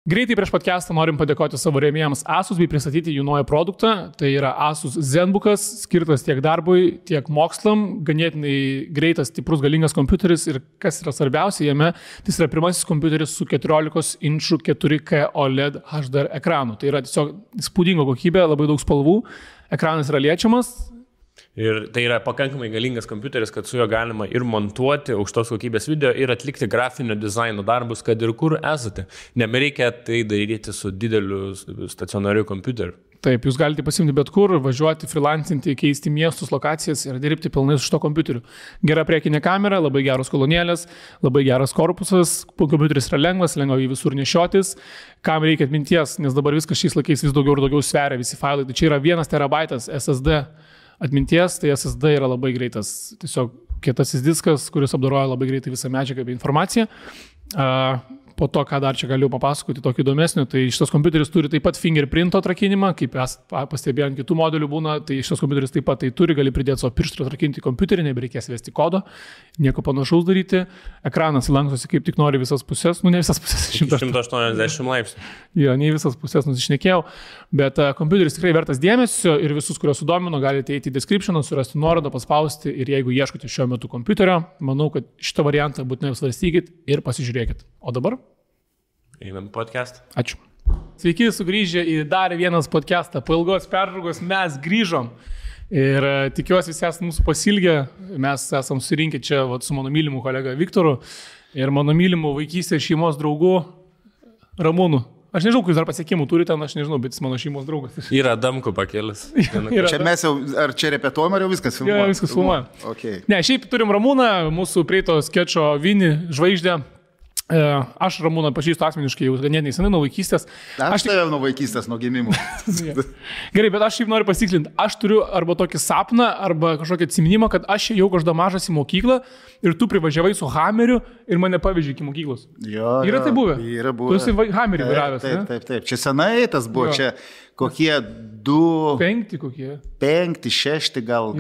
Greitai prieš podcastą norim padėkoti savo rėmėjams Asus bei pristatyti jų naują produktą. Tai yra Asus ZenBookas, skirtas tiek darbui, tiek mokslam. Ganėtinai greitas, stiprus, galingas kompiuteris ir kas yra svarbiausia jame, tai yra pirmasis kompiuteris su 14 inčų 4K OLED HDR ekranu. Tai yra tiesiog įspūdinga kokybė, labai daug spalvų, ekranas yra liečiamas. Ir tai yra pakankamai galingas kompiuteris, kad su juo galima ir montuoti aukštos kokybės video ir atlikti grafinio dizaino darbus, kad ir kur esate. Nebereikia tai daryti su dideliu stacionariu kompiuteriu. Taip, jūs galite pasimti bet kur, važiuoti, freelancinti, keisti miestus, lokacijas ir dirbti pilnai su šito kompiuteriu. Gera priekinė kamera, labai geros kolonėlės, labai geras korpusas, kompiuteris yra lengvas, lengva jį visur nešiotis. Kam reikia atminties, nes dabar viskas šiais laikais vis daugiau ir daugiau sveria visi failai. Tai čia yra 1 terabaitas SSD atminties, tai SSD yra labai greitas, tiesiog kietasis diskas, kuris apdoroja labai greitai visą medžiagą bei informaciją. Po to, ką dar čia galiu papasakoti, tokį įdomesnį, tai šitas kompiuteris turi taip pat fingerprint atrakinimą, kaip pastebėjau ant kitų modelių būna, tai šitas kompiuteris taip pat tai turi, gali pridėti savo pirštų atrakinti kompiuterį, nebereikės vesti kodo, nieko panašaus daryti, ekranas lankstosi kaip tik nori visas pusės, ne visas pusės, 180 laipsnių. Jo, ne visas pusės nusišnekėjau, bet kompiuteris tikrai vertas dėmesio ir visus, kuriuos sudomino, galite eiti į descriptioną, surasti nuorodą, paspausti ir jeigu ieškote šiuo metu kompiuterio, manau, kad šitą variantą būtinai apsvarstykit ir pasižiūrėkit. O dabar? Einam podcast. Ačiū. Sveiki, sugrįžę į dar vienas podcastą. Po ilgos pertraukos mes grįžom ir tikiuosi visi esate mūsų pasilgę. Mes esam surinkę čia su mano mylimu kolega Viktoru ir mano mylimu vaikystės šeimos draugu Ramūnu. Aš nežinau, kai dar pasiekimų turi ten, aš nežinau, bet jis mano šeimos draugas. Yra Damku pakėlis. Čia mes jau, ar čia repetuojam, ar jau viskas filmuojam? Jo, viskas filmuojam. Okay. Ne, šiaip turim Ramūną, mūsų prieito skečo Vini žvaigždę. Aš Ramūną pažįstu asmeniškai jau ganėtinai senai nuo vaikystės. Aš tave nuo vaikystės, nuo gimimų. Gerai, bet aš šiaip noriu pasitikslinti. Aš turiu arba tokį sapną, arba kažkokį atsiminimą, kad aš jau kažkada mažas į mokyklą ir tu privažiavai su Hammeriu ir mane pavežė iki mokyklos. Jo, yra tai buvę? Yra buvę. Tu esi Hammerį vairavęs, ne? Taip. Čia senai tas buvo, čia kokie 5 kokie. 5, 6 gal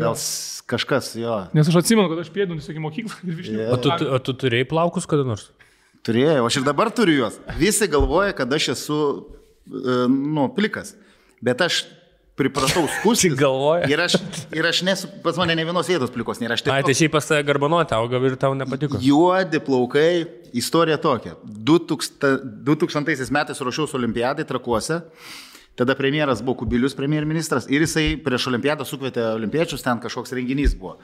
kažkas, jo. Nes aš atsimenu, kad aš pėdunus iki mokyklą ir višniu. O tu turėjai plaukus kada nors? Turėjau, aš ir dabar turiu juos. Visi galvoja, kad aš esu, plikas. Bet aš pripratau skustis. Galvoja. Ir aš nesu, pas mane ne vienos vietos plikos nėra. Ai, tai šiaip pas tave garbanoti auga ir tau nepatiko. Juodi plaukai, istorija tokia. 2000 metais ruošiausi olimpiadai Trakuose. Tada premjeras buvo Kubilius, premjerministras. Ir jisai prieš olimpiadą sukvietė olimpiečius, ten kažkoks renginys buvo.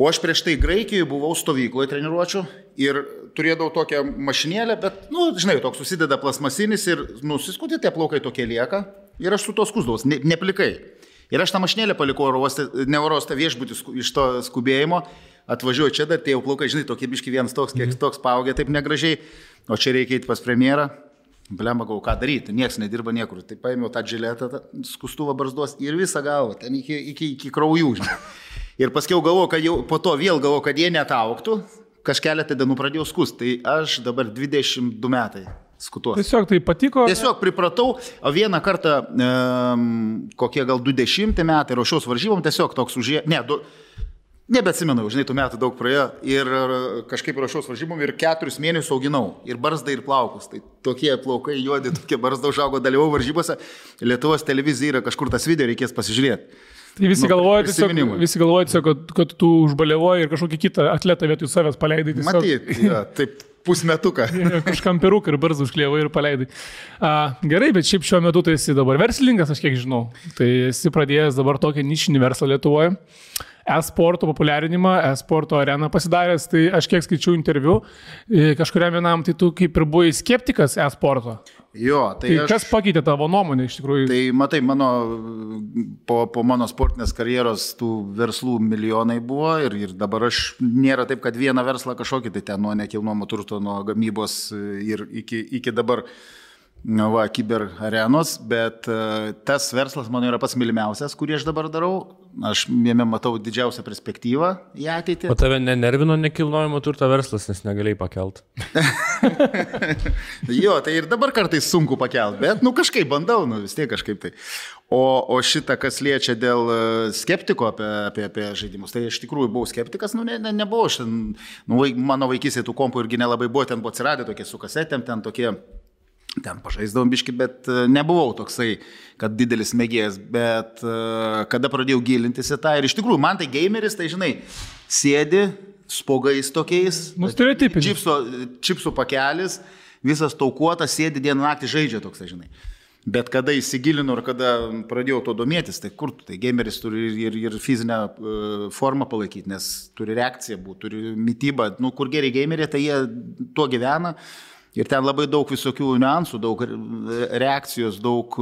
O aš prieš tai Graikijoje buvau stovykloje treniruočių ir turėdavau tokią mašinėlę, bet, žinai, toks susideda plasmasinis ir nusiskutė, tie plaukai tokie lieka ir aš su to skusdavau, neplikai. Ir aš tą mašinėlę palikau neurostą viešbutį iš to skubėjimo, atvažiuoju čia dar, tie jau plaukai, žinai, tokie biški vienas toks, kiek toks paaugė, taip negražiai, o čia reikia eiti pas premjerą. Blemba, gau, ką daryti, nieks nedirba niekur. Tai paėmiau tą džiletą, skustuvą barzdos ir visą galvą, ten iki kraujų, žinai. Ir paskiau galvoju, kad jau po to vėl galvoju, kad jie netauktų, kažkeletą dienų pradėjau skust. Tai aš dabar 22 metai skutuos. Tiesiog tai patiko? Tiesiog pripratau, o vieną kartą, kokie gal 20 metai, ruošiaus varžybom, tiesiog toks užėjo, nebeatsimenu, žinai, tų metų daug praėjo ir kažkaip ruošiaus varžybom ir 4 mėnesius auginau ir barzdą ir plaukus. Tai tokie plaukai juodi, tokie barzda užaugo, dalyvau varžybose, Lietuvos televizija yra kažkur tas video, reikės pasižiūrėti. Tai visi galvoja tiesiog, kad tu užbaliavoji ir kažkokį kitą atletą vietoj savęs paleidai. Matyt, taip pusmetuką. Kažkam peruką ir barzdą užklievai ir paleidai. Gerai, bet šiaip šiuo metu tai esi dabar verslininkas, aš kiek žinau. Tai esi pradėjęs dabar tokią nišinį verslą Lietuvoje. E-sporto populiarinimą, e-sporto areną pasidaręs, tai aš kiek skaičiau interviu, kažkuriam vienam, tai tu kaip ir buvai skeptikas e-sporto. Jo, tai kas pakeitė tavo nuomonę iš tikrųjų? Tai matai, po mano sportinės karjeros tų verslų milijonai buvo ir dabar aš nėra taip, kad vieną verslą kažkokį, tai ten nuo nekilnojamo turto, nuo gamybos ir iki dabar kiber arenos, bet tas verslas mano yra pats mylimiausias, kurį aš dabar darau. Aš jame matau didžiausią perspektyvą į ateitį. O tave nenervino nekilnojamo turto verslas, nes negalėjai pakelt? Jo, tai ir dabar kartais sunku pakelt, bet kažkaip bandau, vis tiek kažkaip tai. O šitą, kas liečia dėl skeptiko apie žaidimus, tai iš tikrųjų buvau skeptikas, nebuvau. Mano vaikystėje tų kompų irgi nelabai buvo, ten buvo atsiradę tokie su kasetėm, ten tokie ten pažaisdavom biški, bet nebuvau toksai, kad didelis mėgėjas, bet kada pradėjau gilintis į tą ir iš tikrųjų man tai gameris, tai žinai, sėdi spogais tokiais, čipsų pakelis, visas taukuotas, sėdi dieną naktį žaidžia toksai, žinai. Bet kada įsigilinu ir kada pradėjau to domėtis, tai kur tu, tai gameris turi ir fizinę formą palaikyti, nes turi reakciją būti, turi mitybą, nu kur geri gameriai, tai jie tuo gyvena. Ir ten labai daug visokių niuansų, daug reakcijos, daug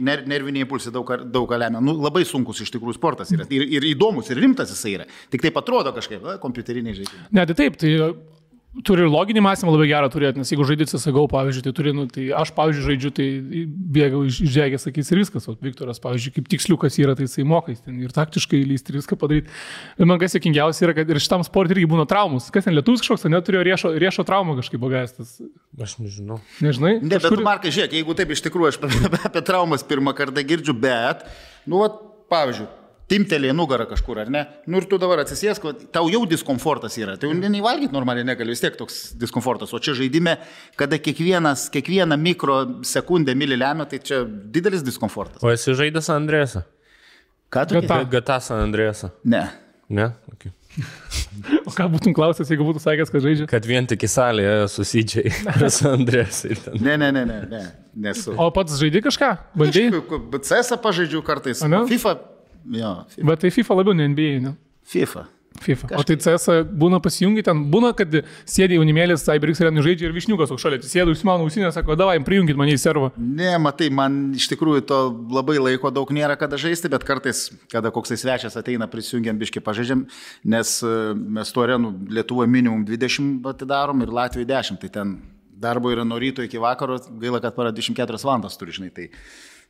nerviniai impulsai, daug lemia. Nu, labai sunkus iš tikrųjų sportas yra. Ir įdomus, ir rimtas jisai yra. Tik taip atrodo kažkaip, kompiuteriniai žaidimai. Ne, tai taip, tai turi ir loginį mąstymą labai gerą turėti, nes jeigu žaidži CSGO, pavyzdžiui, tai turi, tai aš, pavyzdžiui, žaidžiu, tai bėgau iš žegės, sakys ir viskas, o Viktoras, pavyzdžiui, kaip tiksliukas yra, tai jisai mokais ten ir taktiškai lysti ir viską padaryti. Ir man kas juokingiausia yra, kad ir šitam sportui irgi būna traumus. Kas ten lietuvis kažkoks, neturėjo riešo traumą kažkaip pagaistas. Aš nežinau. Nežinai? Ne, bet tu, Markai, žiūrėk, jeigu taip iš tikrųjų aš apie traumas pirmą kartą girdžiu, bet, nu, pavyzdžiui, timtelė nugarą kažkur, ar ne? Nu ir tu dabar atsisėsk, tau jau diskomfortas yra. Tai jau neįvalgyti normaliai negali, vis tiek toks diskomfortas. O čia žaidime, kada kiekvieną mikrosekundę milį lemia, tai čia didelis diskomfortas. O esi žaidęs Andrėsą? Ką tu? GTA San Andrėsą. Ne. Ne? Okay. O ką būtum klausęs, jeigu būtų sakęs, kad žaidžia? Kad vien tik į salėje susidžiai San Andrėsą. Ne, nesu. O pats žaidži kažką? Bandžiai? CS pažaidžiu kartais. FIFA. Jo, FIFA. Bet tai FIFA labiau, ne NBA, ne? FIFA. O tai CS būna pasijungi ten, būna, kad sėdė jaunimėlis, CyberX Arenai žaidžia ir Višniukas aukšalė, sėdė užsimano ausinę, sako, davai, prijungit mane į servą. Ne, matai, man iš tikrųjų to labai laiko daug nėra kada žaisti, bet kartais, kada koksai svečias ateina, prisijungiam biški pažaidžiam, nes mes to arenų Lietuvoje minimum 20 atidarom ir Latvijoje 10, tai ten darbo yra nuo ryto iki vakaro, gaila, kad para 24 valandas turi, žinai, tai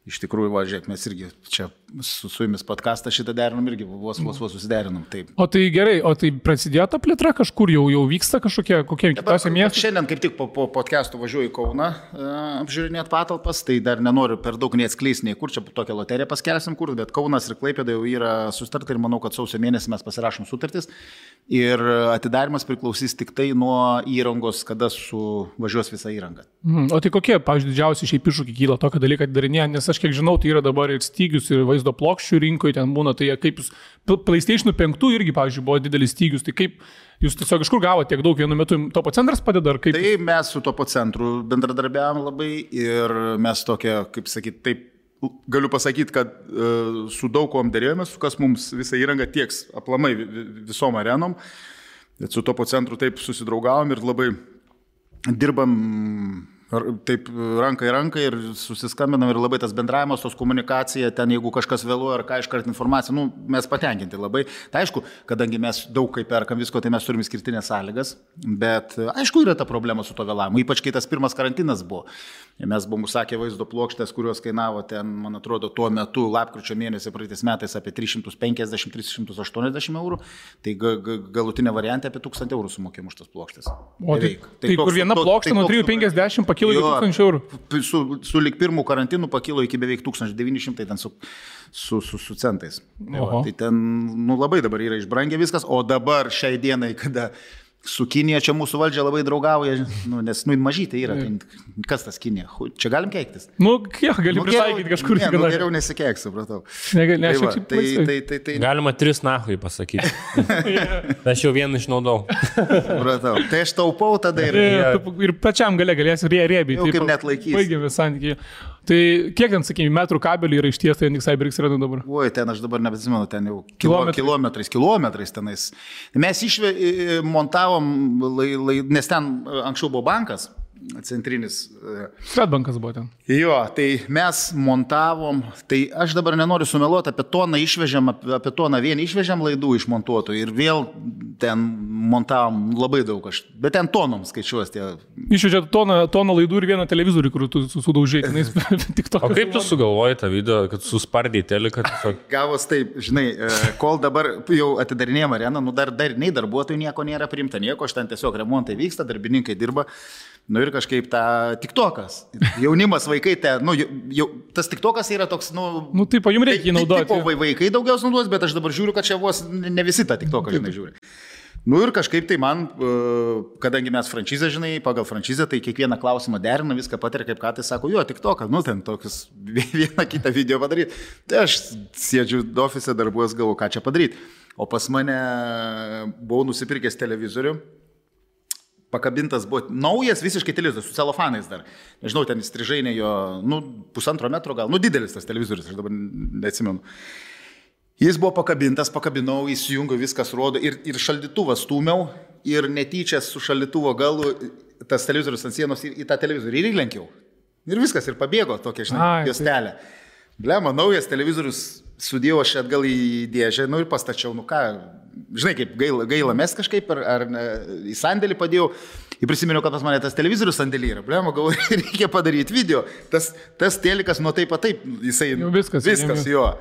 iš tikrųjų, važiuok, mes irgi čia su jumis podcastą šitą derinom irgi, vos susiderinom. Taip. O tai gerai, o tai prasidėjo ta plėtra kažkur, jau vyksta kažkokie kitose miestuose? Šiandien kaip tik po podcastų važiuoju į Kauną apžiūrinėti patalpas, tai dar nenoriu per daug neatskleisti nei kur, čia tokią loteriją paskelsim kur, bet Kaunas ir Klaipėda jau yra sutarta ir manau, kad sausio mėnesį mes pasirašom sutartis ir atidarimas priklausys tik tai nuo įrangos, kada suvažiuos visa įranga. O tai kokie, pavyzdžiui, didžiausi šiaip iššūkiai kyla tokio dalyką darinėje, nes aš kiek žinau, tai yra dabar ir stygius, ir vaizdo plokščių rinkoje ten būna, tai kaip jūs, PlayStation 5 irgi, pavyzdžiui, buvo didelis stygius, tai kaip jūs tiesiog iš kur gavote tiek daug vienu metu, Topo centras padeda, ar kaip? Tai mes su Topo centru bendradarbiavom labai ir mes tokia, kaip sakyti, taip, galiu pasakyti, kad su daug kuom dėrėjomės, kas mums visą įrangą tieks aplamai visom arenom, bet su Topo centru taip susidraugavom ir labai dirbam taip ranka į ranką ir susiskambinam ir labai tas bendravimas, tos komunikacija, ten jeigu kažkas vėluoja ar ką iškart informacija, nu, mes patenkinti labai. Tai aišku, kadangi mes daug kaip perkam visko, tai mes turime skirtinės sąlygas, bet aišku yra ta problema su to vėlavimu, ypač kai tas pirmas karantinas buvo. Mes buvom užsakę vaizdo plokštės, kurios kainavo ten, man atrodo, tuo metu lapkričio mėnesį praeitais metais apie 350-380 eurų, tai galutinė variantė apie 1000 eurų sumokėm už tas plokštės. O tai kur viena plokštė nuo 350 pakilo iki 1000 eurų? Su lik pirmų karantinų pakilo iki beveik 1900 ten su centais. Tai ten labai dabar yra išbrangę viskas, o dabar šiai dienai, kada su Kinija čia mūsų valdžia labai draugauja, nes mažytė yra. Kas tas Kinija? Čia galim keiktis? Gali pritaikyti kažkur. Geriau nesikeik, supratau. Galima 3 nahui pasakyti. Aš jau vieną išnaudau. Supratau. Tai aš taupau tada ir pačiam galėsiu rėbyti. Jau kaip net laikys. Baigėme santykiai. Tai kiek ten, sakykime, metrų kabelį yra išties, tai CyberX Arenai dabar? Oi, ten aš dabar nebeatsimenu, ten jau kilometrais tenais. Mes montavom, nes ten anksčiau buvo bankas, centrinis. Swedbankas buvo ten. Jo, tai mes montavom, tai aš dabar nenoriu sumeluoti, apie toną išvežėm, apie toną vien išvežėm laidų išmontuotų ir vėl ten montavom labai daug, bet ten tonom skaičiuos tie. Išvežė toną laidų ir vieną televizorių, kur tu sudaužėjai. O kaip tu sugalvojai tą video, kad suspardėjai teliką? Gavos taip, žinai, kol dabar jau atidarinėjom areną, dar nei darbuotojų nieko nėra priimta, nieko, aš ten tiesiog remontai vyksta, darbininkai dirba. Nu ir kažkaip tą TikTokas. Jaunimas, vaikai, tas TikTokas yra toks, taip, jums reikia jį naudoti. Tipo vaikai daugiausiai naudos, bet aš dabar žiūriu, kad čia vos ne visi tą TikToką, žinai, žiūri. Nu ir kažkaip tai man, kadangi mes franšizę, žinai, pagal franšizę, tai kiekvieną klausimą derina, viską patiria, kaip ką tai sako, jo, tik to, kad, nu, ten tokius vieną kitą video padaryti. Tai aš sėdžiu ofise, darbuos, galvoju, ką čia padaryti. O pas mane buvau nusipirkęs televizorių, pakabintas buvo naujas visiškai televizorius, su celofanais dar. Nežinau, ten įstrižainė jo, nu, 1,5 metro gal, nu, didelis tas televizorius, aš dabar neatsimenu. Jis buvo pakabintas, pakabinau, įsijungiau, viskas rodo ir šaldytuvą stūmiau ir netyčia su šaldytuvo galu tas televizorius ant sienos į tą televizorių ir įlenkiau. Ir viskas, ir pabėgo tokia, žinai, juostelė. Blema, naujas televizorius sudėjau aš atgal į dėžę, nu ir pastačiau, nu ką, žinai, kaip gaila mes kažkaip, ar į sandėlį padėjau. Ir prisiminiau, kad pas mane tas televizorius sandėlį yra. Blema, galvoju, reikia padaryti video. Tas telikas nuo taip, jisai... Jau viskas jo.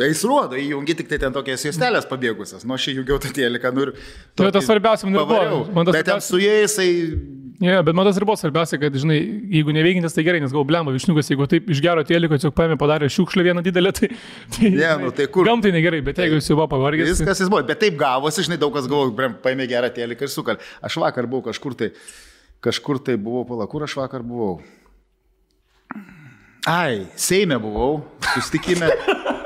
Jis rodo, įjungi tik tai ten tokias juostelės pabėgusias. Nu, aš įjungiau tą teliką, nu ir... Tai tas svarbiausia man ir buvo. Bet ten su jais, bet man tas ir buvo svarbiausia, kad, žinai, jeigu neveikintis, tai gerai, nes galvo, blemba, višniukas, jeigu taip iš gero teliko, tiesiog paėmė, padarė šiukšlę vieną didelę, tai tai kur? Gamtai negerai, bet jeigu jis jau buvo pavargęs. Viskas jis buvo, bet taip gavosi, žinai, daug kas galvoja, paėmė gerą teliką ir sukal. Aš vakar buvau kažkur tai buvau, pala, kur aš vakar buvau? Seime buvau, susitikime.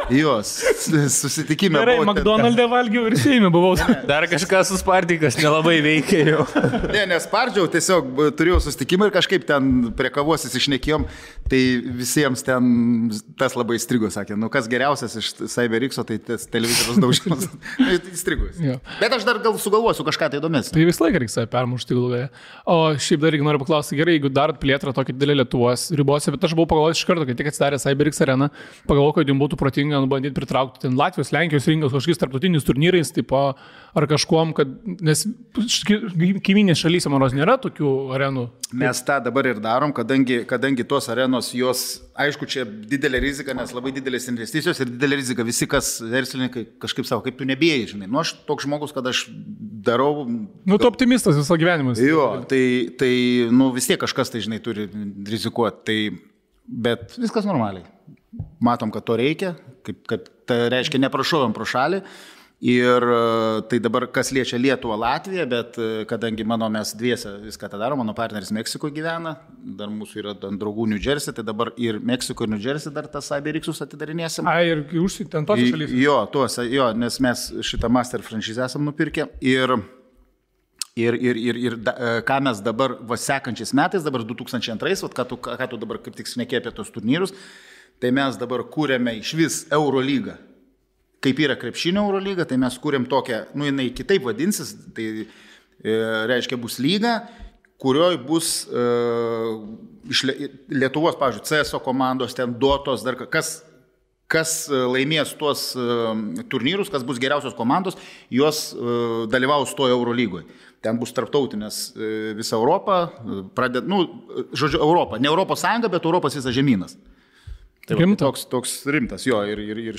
Gerai, McDonald'e valgiau ir Seime buvau. Dar kažkas suspardykas nelabai veikia jau. Nespardžiau, tiesiog turėjau susitikimą ir kažkaip ten prie kavos įsišnekėjom, tai visiems ten tas labai įstrigo, sakė, nu kas geriausias iš CyberX'o, tai tas televizorius daužimas. Įstrigus. Bet aš dar gal sugalvosiu kažką tai įdomesnio. Tai visą laiką reikia save permušti galvoje. O šiaip dar noriu paklausti, gerai, jeigu darot plėtrą tokį didelį Lietuvos ribose, bet aš buvau pagalvojęs iš karto, kai tik atsidarė CyberX arena, pagalvojau, kad jums būtų protinga bandyti pritraukti ten Latvijos, Lenkijos rinkas kažkokiais tarptautiniais turnyrais, tipo, ar kažkuom, kad, nes kaiminės šalyse, manos, nėra tokių arenų. Mes tą dabar ir darom, kadangi tos arenos, jos, aišku, čia didelė rizika, nes labai didelės investicijos ir didelė rizika, visi, kas verslininkai kažkaip savo, kaip tu nebėjai, žinai. Nu, aš toks žmogus, kad aš darau... Nu, tu optimistas visą gyvenimą. Jo, tai, nu, vis tiek kažkas, tai, žinai, turi rizikuoti, tai, bet viskas normaliai. Matom, kad to reikia, kad tai reiškia neprašovėm pro šalį ir tai dabar kas liečia Lietuvą, Latviją, bet kadangi mes dviese viską tą darom, mano partneris Meksikoje gyvena, dar mūsų yra draugų New Jersey, tai dabar ir Meksiko ir New Jersey dar tas CyberX'us atidarinėsim. Ir užsienį ten tos šalys? Jo, nes mes šitą master franšizę esam nupirkę ir ką mes dabar sekančiais metais, dabar 2002, ką tu dabar kaip tik šnekėjai apie tos turnyrus, tai mes dabar kūrėme iš vis Eurolygą. Kaip yra krepšinio Eurolyga, tai mes kūrėm tokią, nu jinai kitaip vadinsis, tai reiškia bus lyga, kurioje bus iš Lietuvos, pavyzdžiui, CSO komandos, ten Dotos, dar kas laimės tuos turnyrus, kas bus geriausios komandos, jos dalyvaus toje Eurolygoje. Ten bus tarptautinės visa Europa, Europa, ne Europos Sąjunga, bet Europos visas žemynas. Tai toks rimtas, jo, ir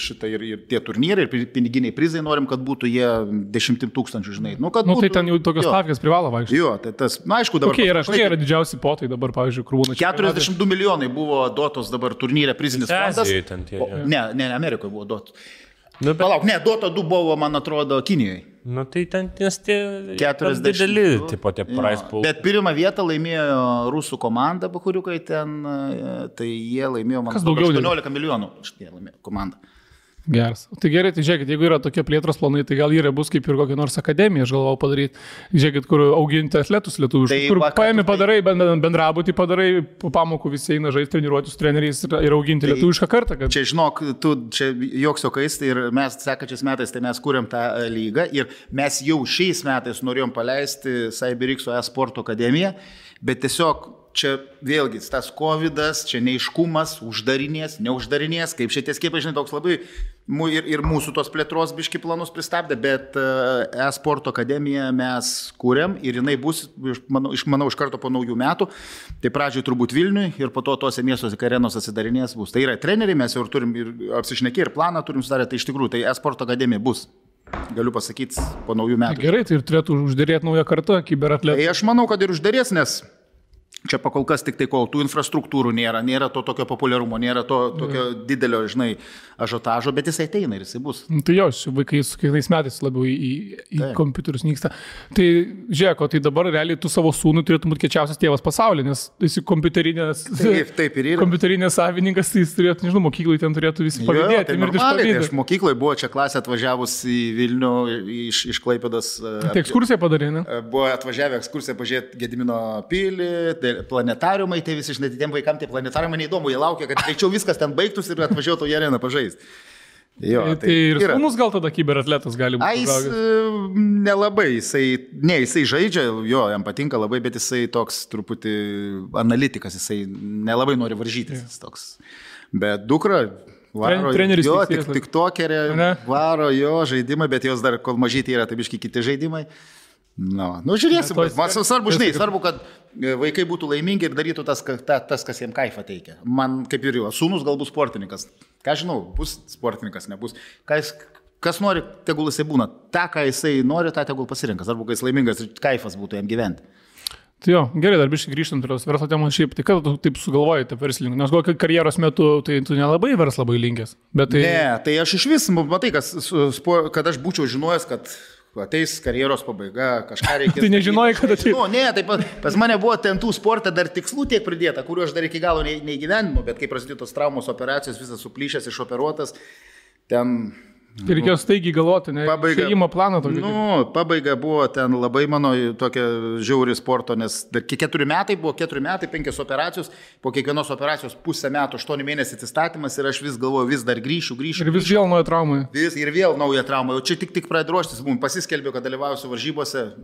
tie turnyrai, ir piniginiai prizai norim, kad būtų jie 10 000, žinai. Nu, būtų, tai ten jau tokios stavkės privalo vaikščioti. Jo, tai tas, na, aišku, dabar... Kokie yra didžiausi potai dabar, pavyzdžiui, kur būna... 42 milijonai buvo Dotos dabar turnyre prizinis fondas. Ne, Amerikoje buvo Dotos. Palauk, ne, Dota 2 buvo, man atrodo, Kinijoje. Nu, tai ten tie 40 dideli, tipo tie prize pool. Bet pirmą vietą laimėjo rusų komanda, bakuriukai ten, tai jie laimėjo, man atrodo, 18 milijonų. Šitie laimėjo komanda. Geras. Tai gerai, tai žiūrėkit, jeigu yra tokie plėtros planai, tai gal yra bus kaip ir kokia nors akademija, aš galvau padaryti. Žiūrėkit, kur auginti atletus lietuviškus, kur paėmė padarai, bendrabutį padarai, po pamokų visi eina žaisti, treniruoti su treneriais ir auginti lietuvišką kartą. Kad... Čia, žinok, čia joks jokais, tai ir mes sekančiais metais, tai mes kūrėm tą lygą ir mes jau šiais metais norėjom paleisti CyberX'o e-sporto akademiją, bet tiesiog čia vėlgi tas covidas, čia neiškumas, uždarinės, neuždarinės, kaip šitie skiepai, žinai, toks labai ir mūsų tos plėtros biški planus pristabdė, bet e-sporto akademiją mes kūrėm ir jinai bus, manau, iš karto po naujų metų, tai pradžioj turbūt Vilniui ir po to tose miestuose arenos atsidarinės bus. Tai yra treneriai, mes jau turim ir apsišnekė ir planą turim sudarę, tai iš tikrųjų, tai e-sporto akademija bus. Galiu pasakyti, po naujų metų. Gerai, tai ir turėtų uždėrėti naują kartą, kiberatletų. Tai aš manau, kad ir uždėrės, nes Čia pakol kas tik tai, kol tų infrastruktūrų nėra to tokio populiarumo, nėra to tokio didelio, žinai, ažiotažo, bet jisai ateina ir jisai bus. Tai jo, vaikai su kiekvienais metais labiau į kompiuterius nyksta. Tai žiūrėk, tai dabar realiai tu savo sūnui turėtum būti kečiausias tėvas pasaulyje, nes esi kompiuterinės savininkas, tai jis turėtų, nežinau, mokyklai ten turėtų visi pavydėti. Tai normaliai, tai aš mokykloje buvo čia klasė atvažiavus į Vilnių iš Klaipėdos. Tai ekskursiją padarė, ne? Buvo atvažiavę ekskursiją pažiūrėti Gedimino pilį, planetariumai, tai visi, žinai, tiem vaikam tie planetariumai neįdomu, jie laukia, kad greičiau viskas ten baigtųsi ir atvažiuotų į areną pažaisti. Jo, tai ir sūnus gal tada kiberatletas gali būti? Jis nelabai, jisai žaidžia, jo, jam patinka labai, bet jisai toks truputį analitikas, jisai nelabai nori varžytis. Toks. Bet dukra varo, jo, tik tokerė, varo jo žaidimai, bet jos dar, kol mažyti yra, tai biški kiti žaidimai. Nu, žiūrėsim, man svarbu, žinai, svarbu, kad vaikai būtų laimingi ir darytų tas, kas jiems kaifą teikia. Man, kaip ir jo, sūnus gal bus sportininkas. Ką žinau, bus sportininkas, nebus. Kas nori, tegul jisai būna. Ta, ką jisai nori, tą tegul pasirinka. Svarbu, kad jis laimingas ir kaifas būtų jam gyventi. Tai jo, gerai, dar biškai grįžtant prie verslo temos šiaip, tai kada tu taip sugalvojai tą verslininkų? Nes gal karjeros metu tai tu nelabai verslą labai linkęs. Ne, tai aš iš vis, matai, kad aš būčiau žinojęs, kad ateis karjeros pabaiga, kažką reikės. Tai nežinojai, kad ateis. Ne, tai pas mane buvo ten tų sportą dar tikslų tiek pridėta, kuriuo aš dar iki galo neįgyvendinu, bet kai prasidėjo tos traumos operacijos, visas suplyšęs, išoperuotas, ten... Tai reikėjo staigiai galvoti, ne? Šeimo planą tokį. Pabaiga buvo ten labai mano tokia žiauri sporto, nes 4 metai buvo, 4 metai, 5 operacijos, po kiekvienos operacijos pusę metų, 8 mėnesių atsistatymas ir aš vis galvoju, vis dar grįšiu. Ir vis vėl nauja trauma. Ir vėl nauja trauma. O čia tik pradėjau ruoštis, pasiskelbiau, kad dalyvausiu varžybose,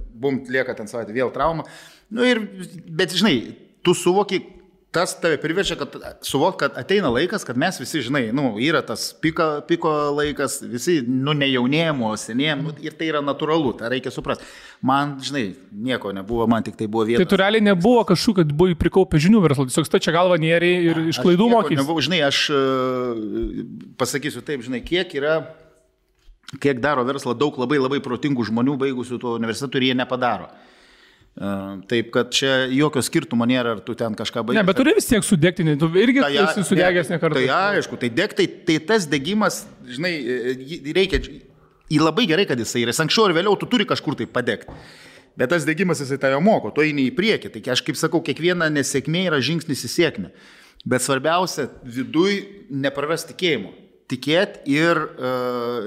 lieka ten savaitę, vėl trauma. Bet žinai, tu suvoki, tas tave priverčia, kad suvok, kad ateina laikas, kad mes visi, žinai, yra tas piko laikas, visi, nejaunėjimo, senėjimo, ir tai yra natūralu, tai reikia suprasti. Man, žinai, nieko nebuvo, man tik tai buvo vieta. Tai tu realiai nebuvo kažkokiu, kad buvai prikaupę žinių verslo, tiesiog stačia galva nėriai ir iš klaidų mokys. Žinai, aš pasakysiu taip, žinai, kiek daro verslą daug labai protingų žmonių baigusių to universitetų ir jie nepadaro. Taip, kad čia jokio skirtumo nėra, ar tu ten kažką baigi. Ne, bet turi vis tiek sudegti, tu irgi esi sudegęs ne kartą. Tai aišku, tai degtai, tai tas degimas, žinai, reikia, labai gerai, kad jisai yra, anksčiau ir vėliau tu turi kažkur tai padegti. Bet tas degimas jisai tave moko, tu eini į priekį, tai aš kaip sakau, kiekviena nesėkmė yra žingsnis į sėkmę. Bet svarbiausia, viduj neprarasti tikėjimo. Tikėti ir,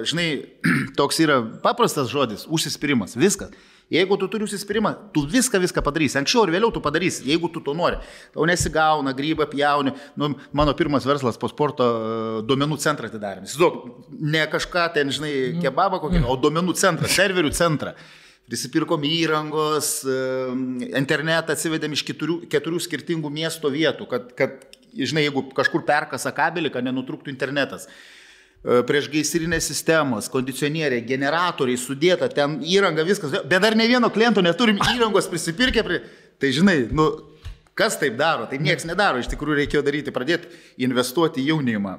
žinai, toks yra paprastas žodis, užsispyrimas, viskas. Jeigu tu turi užsispyrimą, tu viską padarysi. Anksčiau ir vėliau tu padarysi, jeigu tu to nori. Tau nesigauna, grybą pjauni. Mano pirmas verslas po sporto duomenų centrą atidarėm. Ne kažką ten, žinai, kebabą kokį, o duomenų centrą, serverių centrą. Prisipirkom įrangos, internetą atsivedėm iš 4 skirtingų miesto vietų, kad, žinai, jeigu kažkur perkasa kabelį, kad nenutrūktų internetas. Priešgaisrinės sistemos, kondicionieriai, generatoriai sudėta, ten įranga, viskas, bet dar ne vieno kliento neturim įrangos prisipirkę, tai žinai, kas taip daro, tai nieks nedaro, iš tikrųjų reikėjo daryti, pradėti investuoti į jaunimą,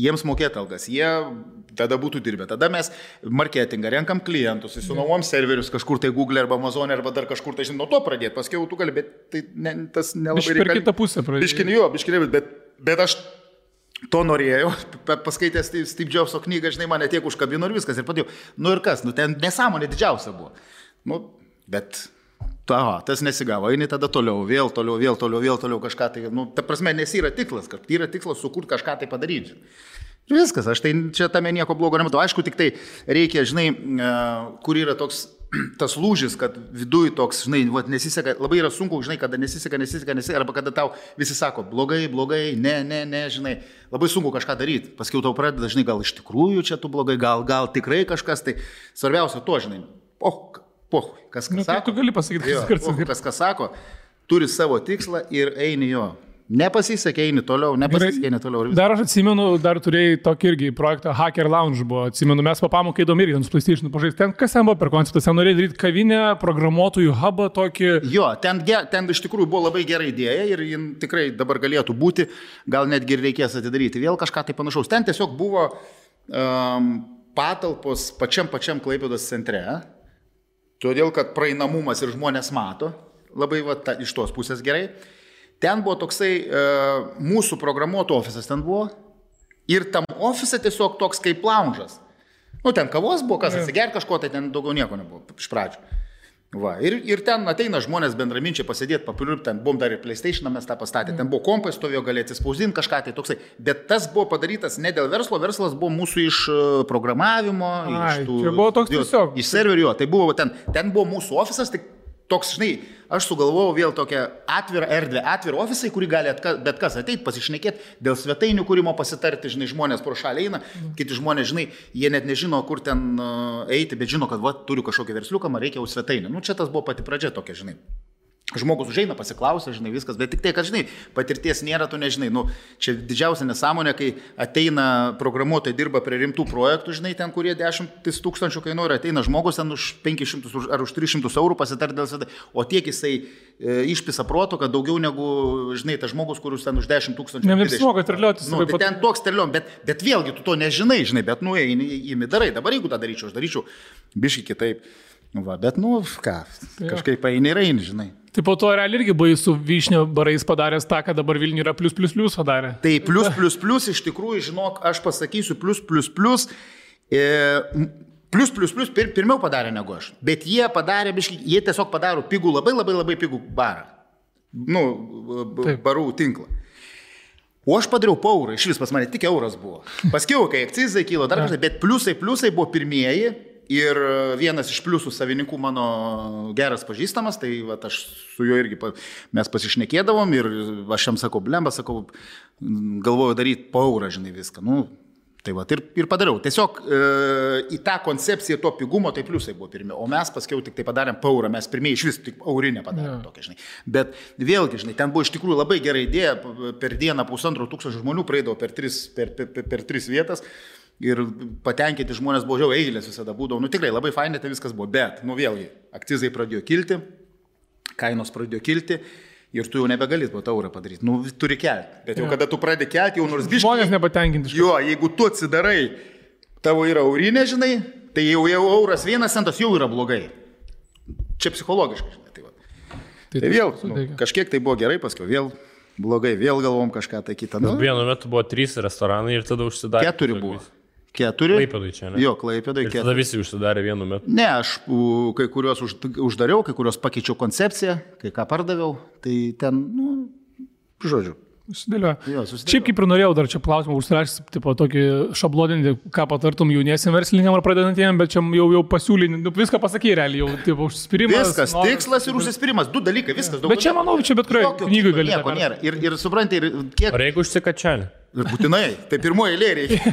jiems mokėti algas, jie tada būtų dirbę, tada mes marketingą, renkam klientus, įsinuomom serverius kažkur tai Google arba Amazon arba dar kažkur, tai žinai, nuo to pradėti, paskui tu gali, bet tai tas nelabai reikia. Per kitą pusę pradėti. Bet aš to norėjau, paskaitęs Steve Jobso knygą, žinai, mane tiek užkabino ir viskas, ir padėjau. Ir kas, ten nesąmonė didžiausia buvo. Bet tas nesigavo, eini tada toliau, vėl toliau kažką tai, ta prasme, nes yra tikslas, kad yra tikslas sukurti kažką tai padaryti. Ir viskas, aš tai čia tame nieko blogo nematau. Aišku, tik tai reikia, žinai, kur yra toks tas lūžis, kad viduj toks, žinai, nesiseka, labai yra sunku, žinai, kada nesiseka, arba kada tau visi sako, blogai, ne, žinai, labai sunku kažką daryti. Paskiau tau pradeda, žinai, gal iš tikrųjų čia tu blogai, gal tikrai kažkas, tai svarbiausia to, žinai, kas sako. Tu gali pasakyti, kas sako, turi savo tikslą ir eini jo. Nepasisekė, eini toliau. Dar aš atsimenu, dar turėjai tokį irgi projektą Hacker Lounge buvo. Atsimenu, mes papamokai įdomi irgi, su PlayStation pažaisti. Ten kas ten buvo per konceptas? Ten norėjai daryti kavinę, programuotojų hubą tokį. Jo, ten iš tikrųjų buvo labai gera idėja ir jin tikrai dabar galėtų būti, gal netgi ir reikės atidaryti vėl kažką tai panašaus. Ten tiesiog buvo patalpos pačiam Klaipėdos centre, todėl kad praeinamumas ir žmonės mato, labai iš tos pusės gerai. ten buvo toksai mūsų programuotų ofisas ten buvo ir tam ofise tiesiog toks kaip lounge'as. Nu, ten kavos buvo, kas atsiger kažko, tai ten daugiau nieko nebuvo iš pradžių. Va, ir ten ateina žmonės bendraminčiai pasėdėti, papiliup, ten buvom dar ir PlayStation mes tą pastatė, ten buvo kompai stovėjo, galėti spausdinti kažką, tai toksai. Bet tas buvo padarytas ne dėl verslo, verslas buvo mūsų iš programavimo, iš tų... Čia buvo toks tiesiog. Iš serverio, tai buvo ten buvo mūsų ofisas, tai toks, žinai, aš sugalvojau vėl tokią atvirą erdvę, atvirą ofisą, į kurį gali bet kas ateiti, pasišnekėti, dėl svetainių kūrimo pasitarti, žinai, žmonės pro šalį eina, kiti žmonės, žinai, jie net nežino, kur ten eiti, bet žino, kad va, turiu kažkokį versliuką, man reikia jau svetainę. Nu, čia tas buvo pati pradžia tokia, žinai. Žmogus užeina, pasiklausia, žinai, viskas, bet tik tai, kad, žinai, patirties nėra, tu nežinai. Nu, čia didžiausia nesąmonė, kai ateina programuotojai, dirba prie rimtų projektų, žinai, ten, kurie 10 000 kainuoja, ateina žmogus ten už 500 ar už 300 eurų pasitarti dėl svetainės, o tiek jisai išpisa proto, kad daugiau negu, žinai, tas žmogus, kuris ten už 10 000. Neapsimoka terliotis. Nu, tai ten toks terliom, bet vėlgi tu to nežinai, žinai, bet nu, įmi darai. Dabar jeigu tą daryčiau, aš daryčiau biškai kitaip. Nu, va, bet, nu, ką, kažkaip eini ir eini, žinai. Tai po to realiai irgi buvai su Vyšnio barais padaręs tą, kad dabar Vilniuje yra +++ padarė. Tai +++ iš tikrųjų, žinok, aš pasakysiu +++. Pirmiau padarė negu aš. Bet jie padarė, jie tiesiog padaro pigų, labai pigų barą. Nu, barų tinklą. O aš padariau po eurą, iš vis pas mane tik euras buvo. Paskiau, kai akcizai kilo dar kažkai, bet pliusai buvo pirmieji. Ir vienas iš pliusų savininkų mano geras pažįstamas, tai va, aš su juo irgi mes pasišnekėdavom ir aš jam sakau, blemba, sakau, galvoju daryti po eurą, žinai, viską. Nu, tai va, ir padariau. Tiesiog į tą koncepciją to pigumo, tai pliusai buvo pirmie, o mes paskiau tik tai padarėm po eurą, mes pirmieji iš vis tik eurinę padarėm tokią, žinai. Bet vėlgi, žinai, ten buvo iš tikrųjų labai gera idėja, per dieną 1500 žmonių praeidavo per tris vietas. Ir patenkinti žmonės buvo žiau, eilės visada būdavo. Nu tikrai labai fainai tai viskas buvo, bet, nu vėlgi, akcizai pradėjo kilti, kainos pradėjo kilti ir tu jau nebegalėt po taurą padaryti. Nu, turi kelti. Bet jau kada tu pradedi kelti, jau nors biškai... Žmonės nepatenkinti. Jo, jeigu tu atsidarai, tavo yra eurinė, žinai, tai jau euras 1 centas jau yra blogai. Čia psichologiškai, žinai. Tai, va. Tai vėl, kažkiek tai buvo gerai, paskui vėl blogai, vėl galvom kažką tai kitą. Nu, vienu metu buvo 3 restoranai ir tada užsidarė. 4 buvo. 4. Klaipėdai čia, ne? Jo, Klaipėdai 4. Ir tada visi užsidarė vienu metu. Ne, aš kai kuriuos uždariau, kai kuriuos pakeičiau koncepciją, kai ką pardaviau, tai ten, nu, žodžiu. Susidėlioja. Šiaip kaip ir norėjau dar čia klausimą užsirašyti, tipo tokį šabloninį, ką patartum jauniesiam verslininkam ar pradedantiem, bet čia jau pasiūlynį, nu, viską pasakė realiai, jau tipo užsispyrimas. Viskas, tikslas ir užsispyrimas, 2 dalykai, viskas. Bet čia manau, čia bet kurioje knygoje gali. Nieko nėra. Ir supranti, ir kiek... Ar jeigu užsikačianė? Būtinai, tai pirmoji eilė reikia.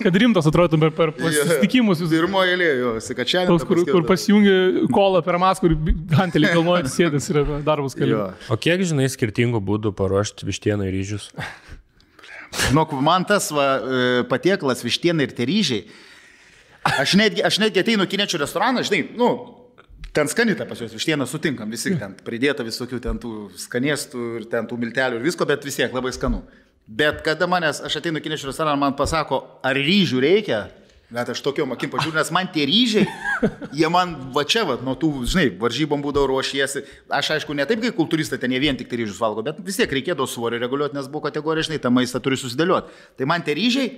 Kad rimtas atrodo per susitikimus. Pirmoji eilė, jo, sikačianė. Kur pasijungi kolą per maską, kur gantelį kalnuojant sėdės ir darbus keli. O kiek žinai skirtingų būdų paruošti vištieną ir ryžius? Žinok, man tas patiekalas vištiena ir tie ryžiai. Aš netgi ateinu kiniečių restoraną, žinai, nu, ten skanita pas juos vištieną sutinkam, visi ten pridėta visokių ten tų skanėstų ir ten tų miltelių ir visko, bet vis tiek labai skanu. Bet kada aš ateinu kiniečių restoraną, man pasako, ar ryžių reikia, net aš tokiom akim pažiūrėjau, nes man tie ryžiai, jie man va čia, va, nuo tų, žinai, varžybom būdavo ruošiesi. Aš aišku, ne taip kaip kultūristai, ten jie vien tik tai ryžius valgo, bet vis tiek reikėdavo svorį reguliuoti, nes buvo kategorija, žinai, tą maistą turi susidėlioti. Tai man tie ryžiai,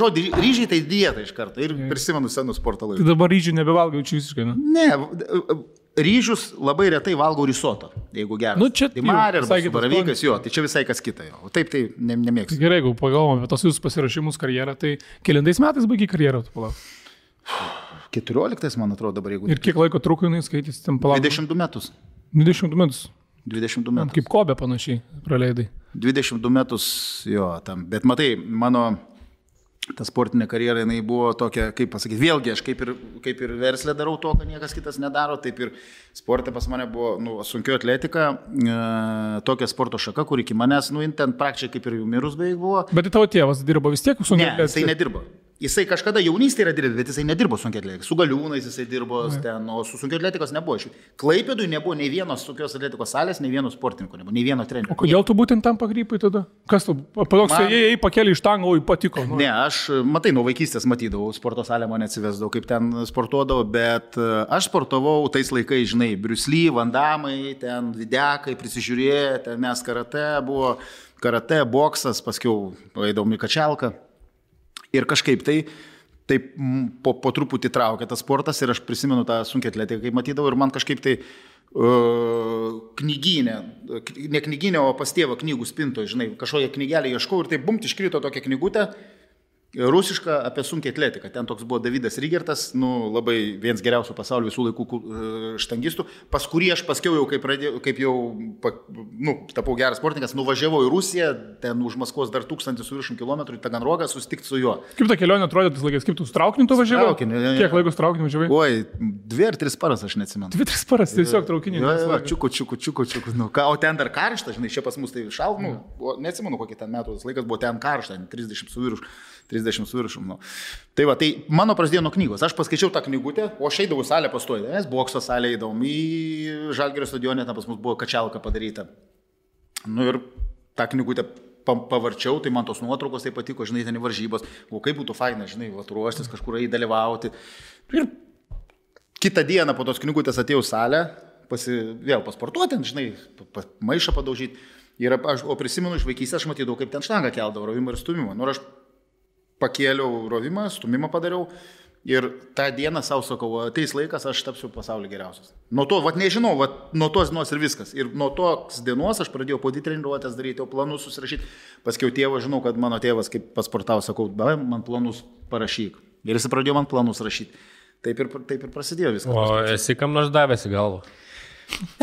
žodį ryžiai tai dieta iš karto ir prisimenu senus sporto laikus. Tai dabar ryžių nebevalgau čia visiškai, ne? Ne, ryžius labai retai valgau risoto, jeigu geras. Nu, čia tai marė arba baravykas, jo, tai čia visai kas kita. O taip tai nemėgstu. Gerai, jeigu pagalvom apie tos jūsų pasirašymus karjerą, tai kelintais metais baigiai karjerą, tu palauk? 14, man atrodo, dabar jeigu. Ir kiek laiko truko jinai skaitys, ten palauk? 22 metus. 22 metus? 22 metus. Kaip Kobe panašiai praleidai. 22 metus, jo, tam. Bet matai, mano... Ta sportinė karjera, jinai buvo tokia, kaip pasakyti, vėlgi aš kaip ir verslę darau to, kad niekas kitas nedaro, taip ir sportė pas mane buvo sunkio atletika, tokia sporto šaka, kur iki manęs, ten praktiškai kaip ir jau mirus beveik buvo. Bet tai tavo tėvas dirbo vis tiek sunkiai atletika? Ne, jisai nedirbo. Jisai kažkada jaunystėje yra dirbęs, bet jisai nedirbo sunkiatletikos. Su galiūnais jisai dirbo ten, o su sunkiatletikos nebuvo. Klaipėdui nebuvo nei vienos sunkios atletikos salės, nei vieno sportininko, nebuvo nei vieno trenerio. O kodėl tu būtent tam pakrypai tada? Kas tu? Patoks, jei pakėlė iš tango, o patiko. Nu. Ne, aš, matai, nuo vaikystės matydavau, sporto salę mane atsivesdavau, kaip ten sportuodavau, bet aš sportavau tais laikais, žinai, Bruce Lee, Van Damme, ten Videkai, prisižiūrėję, ten mes karate buvo, karate, boksas, paskiau eidavom į kačelką. Ir kažkaip tai po truputį traukė tas sportas ir aš prisimenu tą sunkią atletiką, kai matydavau ir man kažkaip tai knyginė, ne knyginė, o pas tėvą knygų spintoje, žinai, kažkokią knygelę ieškau ir tai bumt iškrito tokia knygutė, rusiška apie sunkią atletiką. Ten toks buvo Davidas Rygertas, nu, labai vienas geriausių pasaulio visų laikų štangistų, pas kurį aš paskiau jau, kaip jau tapau geras sportininkas, nuvažiavau į Rusiją, ten už Maskvos dar 1000 km į Taganrogą susitikti su juo. Kaip ta kelionė atrodė tais laikais, kaip tu su traukiniu tu važiavai? Kiek laiko su traukiniu važiavai? Oi, 2 ar 3 paras aš neatsimenu. 2-3 paras, tiesiog traukiniu. Čiuku. Nu, o ten dar karšta, žinai, čia pas mus tai šalta, neatsimenu, kokį ten metų tas laikas buvo, ten karšta, 30 su viršum. Nu. Tai va, tai mano prasidėjo nuo knygos. Aš paskaičiau tą knygutę, o aš eidavau salę pastoju. Mes bokso salę eidavom į Žalgirio stadione, ten pas mus buvo kačelka padaryta. Nu ir tą knygutę pavarčiau, tai man tos nuotraukos tai patiko, žinai, ten į varžybos. O kaip būtų faina, žinai, ruoštis kažkur įdalyvauti. Ir kitą dieną po tos knygutės atėjau salę, vėl pasportuoti, žinai, maišą padaužyti. O prisimenu iš vaikystės, aš matydavau, kaip ten štangą keldavo, rovimą ir stumimą. Nu, aš pakėliau rovimą, stumimą padariau ir tą dieną savo sakau, ateis laikas, aš tapsiu pasaulio geriausias. Nuo to, nežinau, nuo tos dienos ir viskas. Ir nuo tos dienos aš pradėjau po treniruotės daryti, o planus susirašyti. Paskiau tėvą, žinau, kad mano tėvas, kaip pasportavo, sakau, man planus parašyk. Ir jis pradėjo man planus rašyti. Taip ir prasidėjo viskas. O esi kam nors davęs į galvą?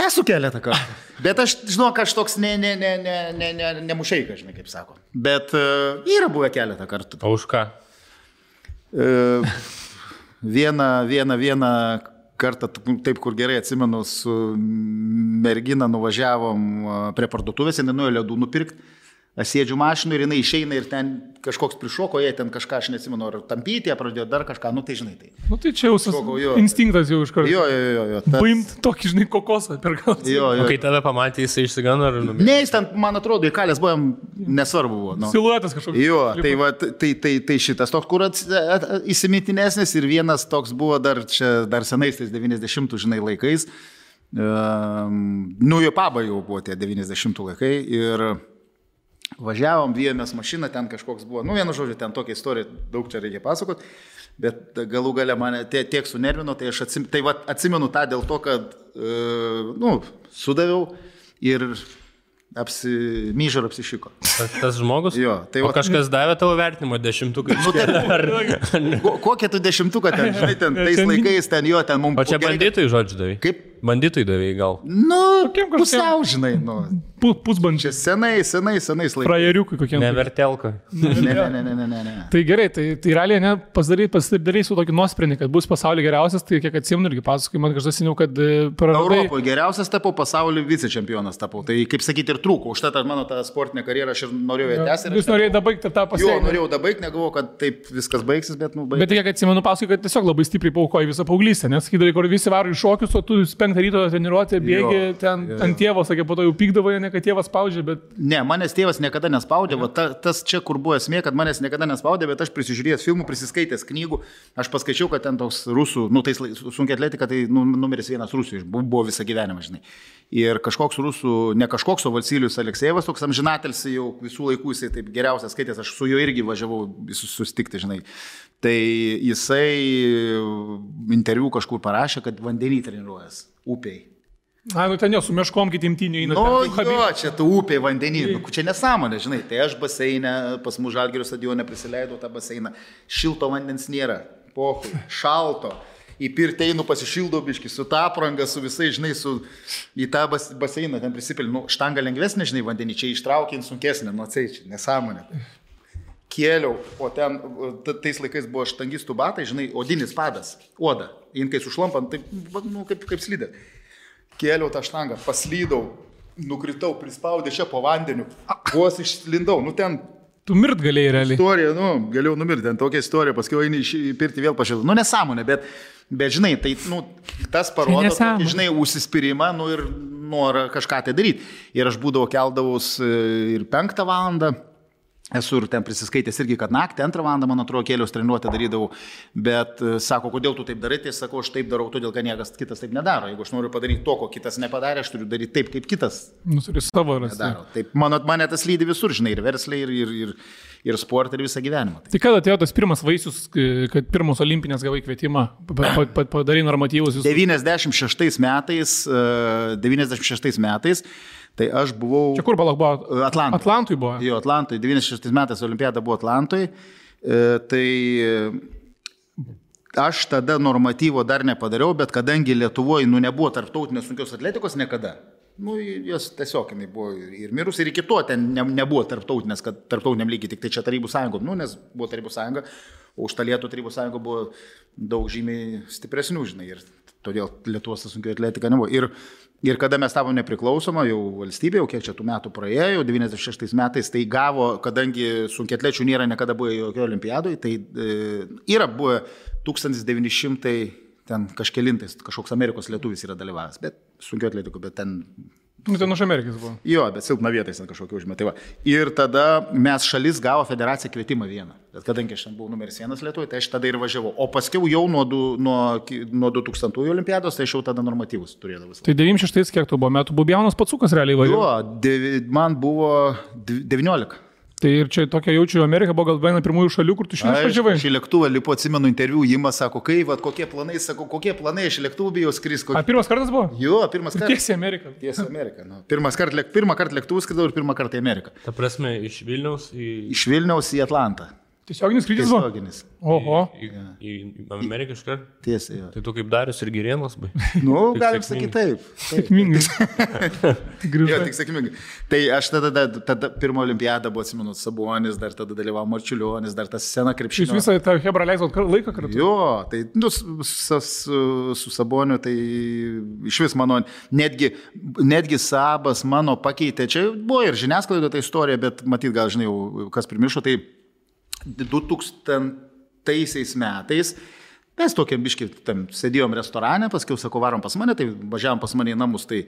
Esu keletą kartų. Bet aš žinau, kad aš toks nemušeika, žinai, kaip sako. Bet yra buvę keletą kartų. O už ką? Vieną kartą, taip kur gerai atsimenu, su mergina nuvažiavom prie parduotuvės, jinai nuėjo ledų nupirkti. Aš sėdžiu mašinu ir jinai išeina ir ten kažkoks prišoko, jie ten kažką, aš neatsimenu, ar tampyti, pradėjo dar kažką, nu tai žinai tai. Nu tai čia jau instinktas jau iš karto. Jo. Paimt tokį, žinai, kokosą per galvą. O kai tave pamatė, jisai išsigano ar numirė? Ne, jis ten, man atrodo, įkalęs buvom, nesvarbu buvo. Nu. Siluetas kažkoks. Jo, tai šitas toks, kur įsimintinesnis ir vienas toks buvo dar senais, tais 90, žinai, laikais. Nu, jo paba jau buvo tie 90 laikai ir važiavom, vijomės mašiną, ten kažkoks buvo, nu vienu žodžiu, ten tokia istorija, daug čia reikia pasakoti, bet galų gale mane tiek sunervino, tai aš atsimenu tą dėl to, kad, sudaviau ir myžar apsišiko. Tas žmogus? Jo. Tai o kažkas davė tavo vertinimo 10-uką? Kokią tu 10-uką ten, žinai, tais laikais ten jo, ten mums... O čia bandytojai žodžiu davai? Kaip? Bandytojai davai gal? Nu, pusiau, žinai, Pusbandžiai. Senais laikais. Frajeriukai kokie. Nevertelka. Ne. Tai gerai, tai realiai pasidarai su tokį nuosprendį, kad bus pasaulio geriausias, tai kiek atsimenu irgi pasakai, man kažkas seniau, kad praradai... Europoje geriausias tapau, pasaulio vicečempionas tapau. Tai kaip sakyti ir trūko. Už tą mano tą sportinę karjerą aš ir norėjau ją tęsti. Jūs norėjai dabaigti tą pasiekti? Jo, norėjau dabaigti, negalvojau, kad taip viskas baigsis, bet baigsis. Bet kiek atsimenu, pasakai, kad tiesiog labai stipriai paaukoji visą paauglystę, nes sakydavai, kur visi varo į šokius, o tu 5 ryto treniruotė, bėgi ten ant tėvo, sakė, po to jau pykdavo, ne kad tėvas spaudžia, bet... Ne, manęs tėvas niekada nespaudė, tas čia kur buvo esmė, kad manęs niekada nespaudė, bet aš prisižiūrėjęs filmų, prisiskaitęs knygų, aš paskaičiau, kad ten toks rusų, tai sunkia atletika, tai numeris 1 Rusijos, buvo visą gyvenimą, žinai. Ir kažkoks rusų, ne kažkoks, o Valsylius Aleksejevas, toks amžinatelis jau visų laikų, jisai taip geriausias skaitęs, aš su juo irgi važiavau susitikti, žinai. Tai jisai interviu kažkur parašė, kad vandenį treniruojas, upiai. Nu ten jau su meškom kitimtiniu įeina. Jo, čia tu upiai vandenį, čia nesąmonė, žinai. Tai aš baseinę, pas mūsų Žalgirio stadione prisileidau tą baseiną, šilto vandens nėra, pohui, šalto. Į pirtį einu pasišildau biškį, su tą aprangą, su visai, žinai, į tą baseiną ten prisipilinu. Štanga lengvesnė, žinai, vandenį, čia ištraukint sunkesnė, čia nesąmonė. Kėliau, o ten tais laikais buvo štangistų batai, žinai, odinis padas, oda. Jin kai sušlampant, tai, kaip slidė. Kėliau tą štangą, paslydau, nukritau, prispaudė čia po vandeniu, vos išlindau, ten Tu mirt galėjai realiai. Istorija, galėjau numirti, ten tokia istorija, paskui eini į pirtį vėl pašilti. Nesąmonė, bet žinai, tai, tas parodo, tokį, žinai, užsispyrimą, ir norą kažką tai daryti. Ir aš būdavau keldavus ir 5 valandą. Esu ir ten prisiskaitęs irgi, kad naktį 2 valandą, man atrodo, kelios treniruotę darydavau, bet sako, kodėl tu taip darai, tai sakau, aš taip darau, todėl, kad niekas kitas taip nedaro. Jeigu aš noriu padaryti to, ko kitas nepadarė, aš turiu daryti taip, kaip kitas. Turi savo rasti. Taip, mane tas lydi visur, žinai, ir versliai, ir sportą, ir visą gyvenimą. Tai kada atėjo tas pirmas vaisius, kad pirmos olimpinės gavai kvietimą, padarai normatyvus? 96 metais. Tai aš buvau... Čia kur balak buvo? Atlantui buvo. Jo, Atlantui. 96 metais olimpiada buvo Atlantui. Tai aš tada normatyvo dar nepadariau, bet kadangi Lietuvoje nebuvo tarptautinės sunkios atletikos niekada. Jos tiesiog buvo ir mirus, ir iki to ten nebuvo tarptautinės, kad tarptautiniam lygiai tik tai čia Tarybų sąjungom, nes buvo Tarybų sąjunga, o už Talietų Tarybų sąjunga buvo daug žymiai stipresnių, žinai, ir todėl Lietuvos sunkio atletika nebuvo. Ir kada mes tavom nepriklausoma, jau valstybė, jau kiek čia tų metų praėjo, 96 metais, tai gavo, kadangi sunkiatlečių nėra niekada buvo jokio olimpiadoje, tai yra buvo 1900 ten kažkelintais, kažkoks Amerikos lietuvis yra dalyvavęs, bet sunkio atletikų, bet ten... Ten už Amerikos buvo. Jo, bet silpna vietais ten kažkokia užmė. Tai ir tada mes šalis gavo federaciją kvietimą vieną. Bet kadangi aš ten buvau numeris 1 Lietuvoje, tai aš tada ir važiavau. O paskiau jau nuo 2000 olimpiados, tai aš jau tada normatyvus turėdavau. Tai 96 kiek tu buvo metų? Buvo jaunas pacukas realiai važiavo? Jo, man buvo 19. Tai ir čia tokia jaučiu, Amerika buvo gal viena pirmųjų šalių, kur tu šiandien važiavai. Aš į lėktuvą lipu, atsimenu interviu, Jimas sako, kokie planai, aš į lėktuvą bijau skris. Pirmas kartas buvo? Jo, pirmas kartas. Tiesiai Amerika. Tiesiai Amerika. Pirmą kartą lėktuvų skridau ir pirmą kartą į Ameriką. Ta prasme, iš Vilniaus į Atlantą. Tiesioginis skrydis buvo? Tiesioginis. Oho. Į Ameriką iškart? Tiesiai, jo. Tai tu kaip Darius ir Girėnas, bai? Galim sakyti taip. Sėkmingai. Jo, tik sėkmingai. Tai aš tada pirmą olimpiadą buvo, atsimenu, Sabonis, dar tada dalyvavo Marčiulionis, dar tas sena krepšinio. Jūs visą tą Hebrą leisot laiką kartu? Jo, tai su Saboniu, tai iš vis mano, netgi Sabas mano pakeitė, čia buvo ir žiniasklaido ta istorija, bet matyt, gal žinai, kas primiršo, tai 2000 metais mes tokiam biškį sėdėjom restorane, paskiau sako, varom pas mane, tai važiavom pas mane į namus, tai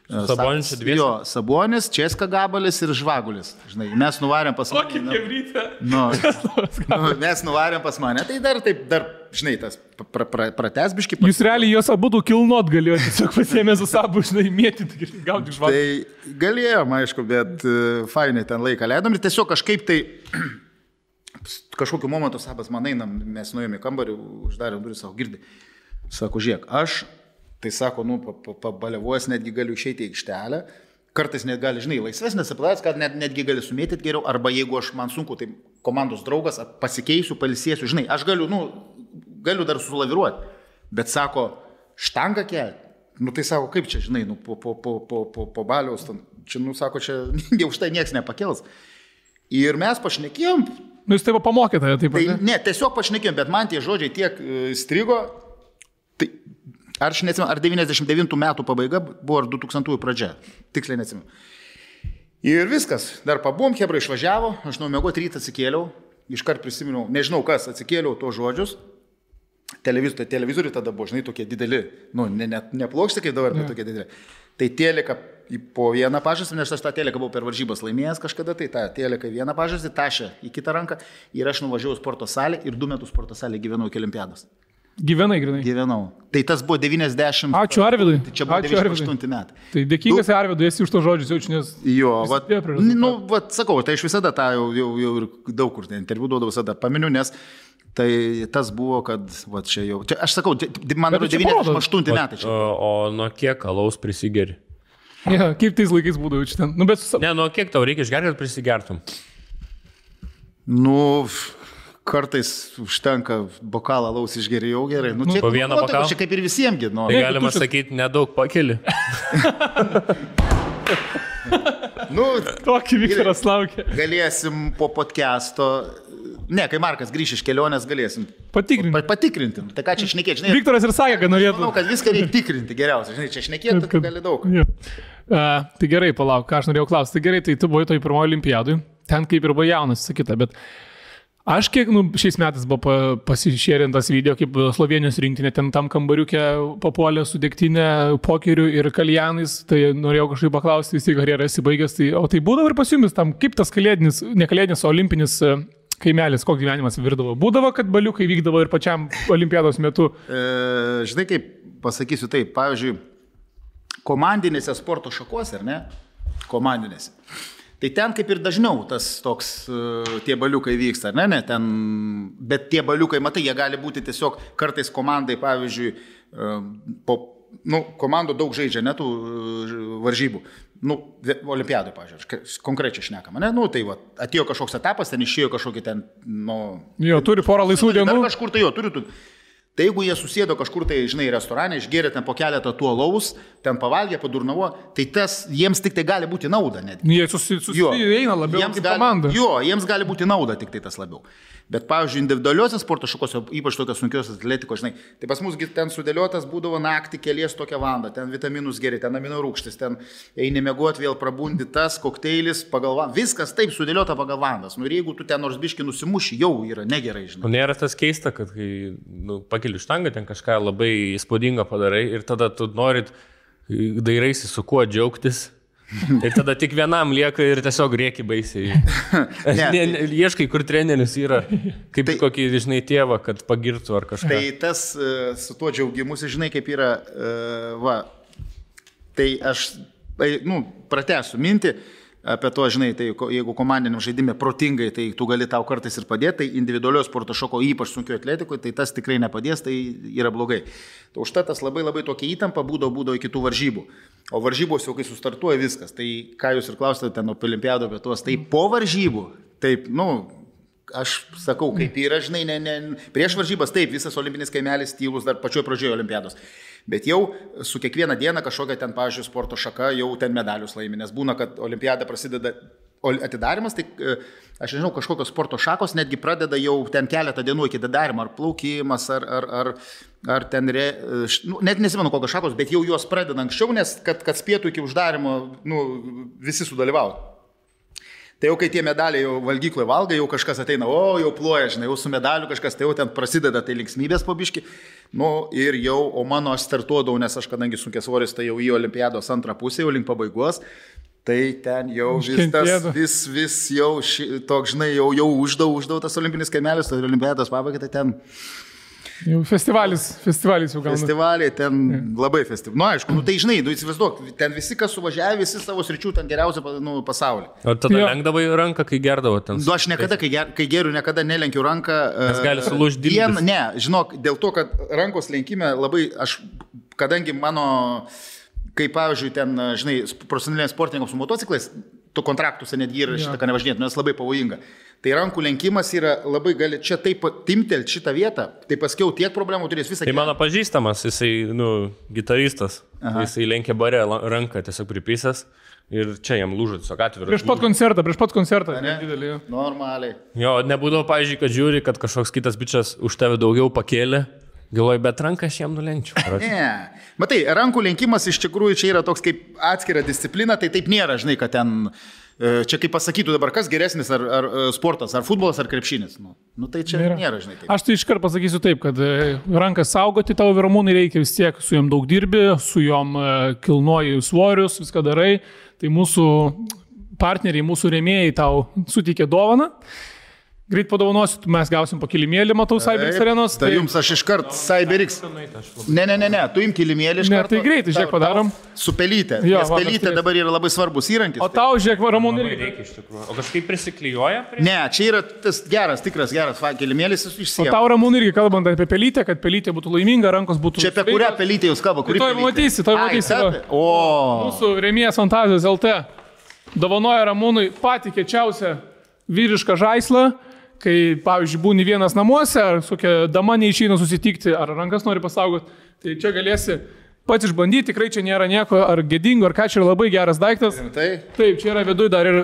Sabonis čia dviesi? Jo, Sabonis, Česka Gabalis ir Žvagulis. Žinai, mes nuvarėm pas mane. Kokį kebrytę? Mes nuvarėm pas mane, tai dar, žinai, tas prates biškį. Jūs realiai juos abudu kilnot galėjote, tiesiog pasiėmė su Sabu, žinai, mėtyti, gauti Žvagulį. Tai galėjom, aišku, bet fainai ten laiką leidom ir tiesiog kažkaip tai... Kažkokiu momentu Sabas man einam, mes nuėjome į kambarį, uždarėm duris, sako, girdi. Sako, žiūrėk, aš, tai sako, pabaliavojas netgi galiu išeiti į aikštelę, kartais net gali, žinai, laisvesnės apladas, kad netgi gali sumėtyti geriau, arba jeigu aš man sunku, tai komandos draugas, pasikeisiu, palisėsiu, žinai, aš galiu dar sulaviruoti, bet sako, štangą kelti. Tai sako, kaip čia, žinai, po baliaus, čia, sako, čia už tai nieks nepakels. Ir mes pašnekėjom. Jūs taip pamokėte, taip pat? Tai, ne, tiesiog pašnekėjom, bet man tie žodžiai tiek strigo. Tai, aš neatsimenu, ar 99 metų pabaiga buvo, ar 2000 pradžia. Tiksliai neatsimenu. Ir viskas. Dar pabuvom, Hebra išvažiavo, aš nuomėgot rytą atsikėliau, iškart prisiminiau, nežinau kas, atsikėliau to žodžius. Televizoriai tada buvo, žinai, tokie dideli. Ne plokštė kaip dabar, bet tokie dideli. Tai teleka po vieną pažastį, nes aš tą teleką buvau per varžybas laimėjęs kažkada, tai tą teleką vieną pažastį, tašę į kitą ranką ir aš nuvažiavau sporto salę ir 2 metus sporto salėje gyvenau iki olimpiados. Gyvenai, grinai? Gyvenau. Tai tas buvo 90. Ačiū Arvidui. Tai čia buvo 98 metai. Tai dėkingas Arvidui, esi už to žodžius jaučiu, nes... Jo, sakau, tai aš visada tą jau ir daug kur interviu duodavau, visada paminiu, nes tai tas buvo, kad čia jau... Čia, aš sakau, man yra 98 metai. O nuo kiek alaus prisigeri? Ja, kaip tais laikais būdavo čia ten? Ne, nuo kiek tau reikia išgerti, kad prisigertum? Kartais užtenka bokalą alaus išgerėjau gerai. Po vieną bokalą? Čia kaip ir visiemgi. Tai galima sakyti, nedaug pakeli. Tokį Viktoras laukia. Galėsim po podcast'o... Ne, kai Markas grįš iš kelionės, galėsim patikrinti. Tai ką čia šnekėti, žinai? Viktoras ir sakė, kad norėtų. Manau, kad viską reikia tikrinti geriausiai. Žinai, čia šnekėti, tai gali daug. Tai gerai, palauk, ką aš norėjau klausti. Tai gerai, tai tu buvai toj pirmoji olimpiadui. ten kaip ir buvo jaunas, sakyta, bet aš kiek, šiais metais buvo pasišėrintas video, kaip Slovenijos rinktinė ten tam kambariukė papuolė su degtinė, pokeriu ir kaljanais, tai norėjau kažkaip paklausti, vis tiek karjerą esi baigęs, o tai būdavo ir pas jumis tam, kaip tas kalėdinis, ne kalėdinis, o olimpinis kaimelis, koks gyvenimas virdavo? Būdavo, kad baliukai vykdavo ir pačiam olimpiados metu? Žinai, kaip pasakysiu taip, pavyzdžiui, komandinėse sporto šakose, ar ne? Komandinėse. Tai ten kaip ir dažniau tas toks, tie baliukai vyksta, ar ne? Ten, bet tie baliukai, matai, jie gali būti tiesiog kartais komandai, pavyzdžiui, komandų daug žaidžia, ne tų varžybų. Olimpiadai, pavyzdžiui, konkrečiai šnekama, ne? Tai va, atėjo kažkoks etapas, ten išėjo kažkokį ten, Jo, turi porą laisvų dienų. Kažkur tai jo, turi. Tai jeigu jie susėdo kažkur tai, žinai, restorane, išgėrė ten po keletą tuo alaus, ten pavalgė, padurnavo, tai tas jiems tik tai gali būti nauda. Jie susieina labiau kaip komanda. Jo, jiems gali būti nauda tik tai tas labiau. Bet, pavyzdžiui, individualiuose sporto šakose, ypač tokios sunkios atletikos, žinai, tai pas mus ten sudėliotas būdavo naktį kelies tokią valandą, ten vitaminus geri, ten amino rūgštis, ten eini miegoti, vėl prabundi tas, kokteilis, pagal valandą, viskas taip sudėliota pagal valandas. Ir jeigu tu ten nors biškį nusimuši, jau yra negerai, žinai. Nėra tas keista, kad kai pakeli štangą, ten kažką labai įspūdingo padarai ir tada tu norit, dairaisi su kuo džiaugtis. Ir tada tik vienam lieka ir tiesiog rėki baisiai. Ieškai, kur treneris yra, kaip kokį, žinai, tėvą, kad pagirtų ar kažką. Tai tas su tuo džiaugimusi, žinai, kaip yra, tai aš, pratęsiu mintį apie to, žinai, tai jeigu komandiniam žaidime protingai, tai tu gali tau kartais ir padėti, tai individualios sporto šoko, ypač sunkio atletikoje, tai tas tikrai nepadės, tai yra blogai. Tai užtat tas labai tokia įtampa būdavo iki tų varžybų. O varžybos jau kai sustartuoja viskas, tai ką jūs ir klausėte ten apie olimpiado vietos, tai po varžybų, taip, aš sakau, kaip yra, žinai, prieš varžybas, taip, visas olimpinis kaimelis tylus dar pačioj pradžioje olimpiados. Bet jau su kiekvieną dieną kažkokia ten, pavyzdžiui, sporto šaka jau ten medalius laimi, nes būna, kad olimpiada prasideda atidarimas, tai aš nežinau, kažkokios sporto šakos netgi pradeda jau ten keletą dienų iki atidarimo, ar plaukimas, ar ten, net nesimenu kokios šakos, bet jau juos pradeda anksčiau, nes kad spėtų iki uždarimo, visi sudalyvautų. Tai jau kai tie medaliai jau valgykloje valga, jau kažkas ateina, jau ploja, žinai, jau su medaliu kažkas, tai jau ten prasideda tai linksmybės po biškį. Ir jau, o mano aš startuodavau, nes aš kadangi sunkiasvoris, tai jau į olimpiados antrą pusę, jau link pabaigos, tai ten jau vis jau toks, žinai, jau uždau tas olimpinis kaimelis, tai olimpiados pabaiga, tai ten... Jau festivalis jau gauna. Festivaliai ten labai festivaliai. Aišku, tai žinai, įsivaizduok, ten visi, kas suvažiavė, visi savo sričių ten geriausia pasaulyje. O tada lenkdavai ranką, kai gerdavo ten? Aš niekada, kai geriu, niekada nelenkiu ranką. Nes gali sulūžti dilbis. Ne, žinok, dėl to, kad rankos lenkime labai, kadangi mano, kaip pavyzdžiui, ten, žinai, profesionaliniams sportininkams su motociklais, tu kontraktuose netgi yra šitą, ką nevažinėtų, nes labai pavojinga. Tai rankų lenkimas yra labai gali čia taip timtelt šitą vietą, tai paskiau tiek problemų turės visą. Tai mano pažįstamas, jisai, gitaristas, jisai lenkė bare ranką tiesiog pripysęs ir čia jam lūžo tiesiog atviras. Prieš pat koncertą. Ne? Normaliai. Jo, nebūdavo, pavyzdžiui, kad žiūri, kad kažkoks kitas bičias už tave daugiau pakėlė. Galvoju, bet ranką aš jam nulenkčiau. Ne. Matai, rankų lenkimas iš tikrųjų čia yra toks kaip atskira disciplina, tai taip nėra, žinai, kad ten... Čia kaip pasakytų dabar, kas geresnis, ar sportas, ar futbolas, ar krepšinis. Tai čia nėra, žinai. Taip. Aš tai iškart pasakysiu taip, kad rankas saugoti tavo Ramūnai reikia vis tiek, su jom daug dirbi, su jom kilnoji svorius, viską darai. Tai mūsų partneriai, mūsų rėmėjai tau suteikė dovaną. Greit padovanosiu, mes gausim po kilimėlį, matau, CyberX arenos. Tai jums aš iškart CyberX. Ne, tu im kilimėlį iškart. Ne, tai greitai, žiūrėk, padarom. Su pelytė. Jo, nes pelytė dabar yra labai svarbus įrankis. O tau, žiūrėk, Ramūnai, reikia iš tikrųjų. O kažkaip prisiklijuoja? Ne, čia yra tas geras kilimėlis išsiema. O tau, Ramūnai, irgi kalbant apie pelytę, kad pelytė būtų laiminga, rankos būtų... Čia apie kurią pelytę jūs kalbate? Toj matysi. Mūsų rėmėjas Fantazijos LT dovanoja Ramūnui patį kiečiausią vyrišką žaislą. Kai, pavyzdžiui, būni vienas namuose, ar su kokia dama neišeina susitikti, ar rankas nori pasaugoti, tai čia galėsi pats išbandyti, tikrai čia nėra nieko ar gėdingo, ar ką, čia yra labai geras daiktas. Taip, čia yra viduj dar ir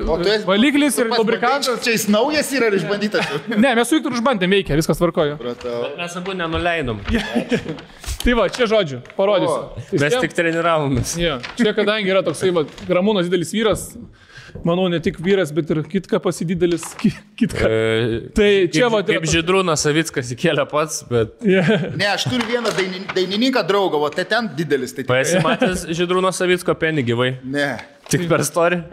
valiklis, ir lubrikantas. Čia jis naujas yra ar išbandytas? Ne, mes su Viktoru išbandėm, veikia, viskas tvarkojo. Bet mes abu nenuleidom. Tai va, čia žodžiu, parodysiu. Mes tik treniravomės. Čia kadangi yra toksai, Ramūnas didelis vyras, manau, ne tik vyras, bet ir kitka pasididelis. Kitka. Tai čia va... Kaip Žydrūnas Savickas įkėlė pats, bet... Ne, aš turiu vieną dainininką draugą, o tai ten didelis. Tai Pasimatęs Žydrūno Savicko penį gyvai. Ne. Tik per istoriją?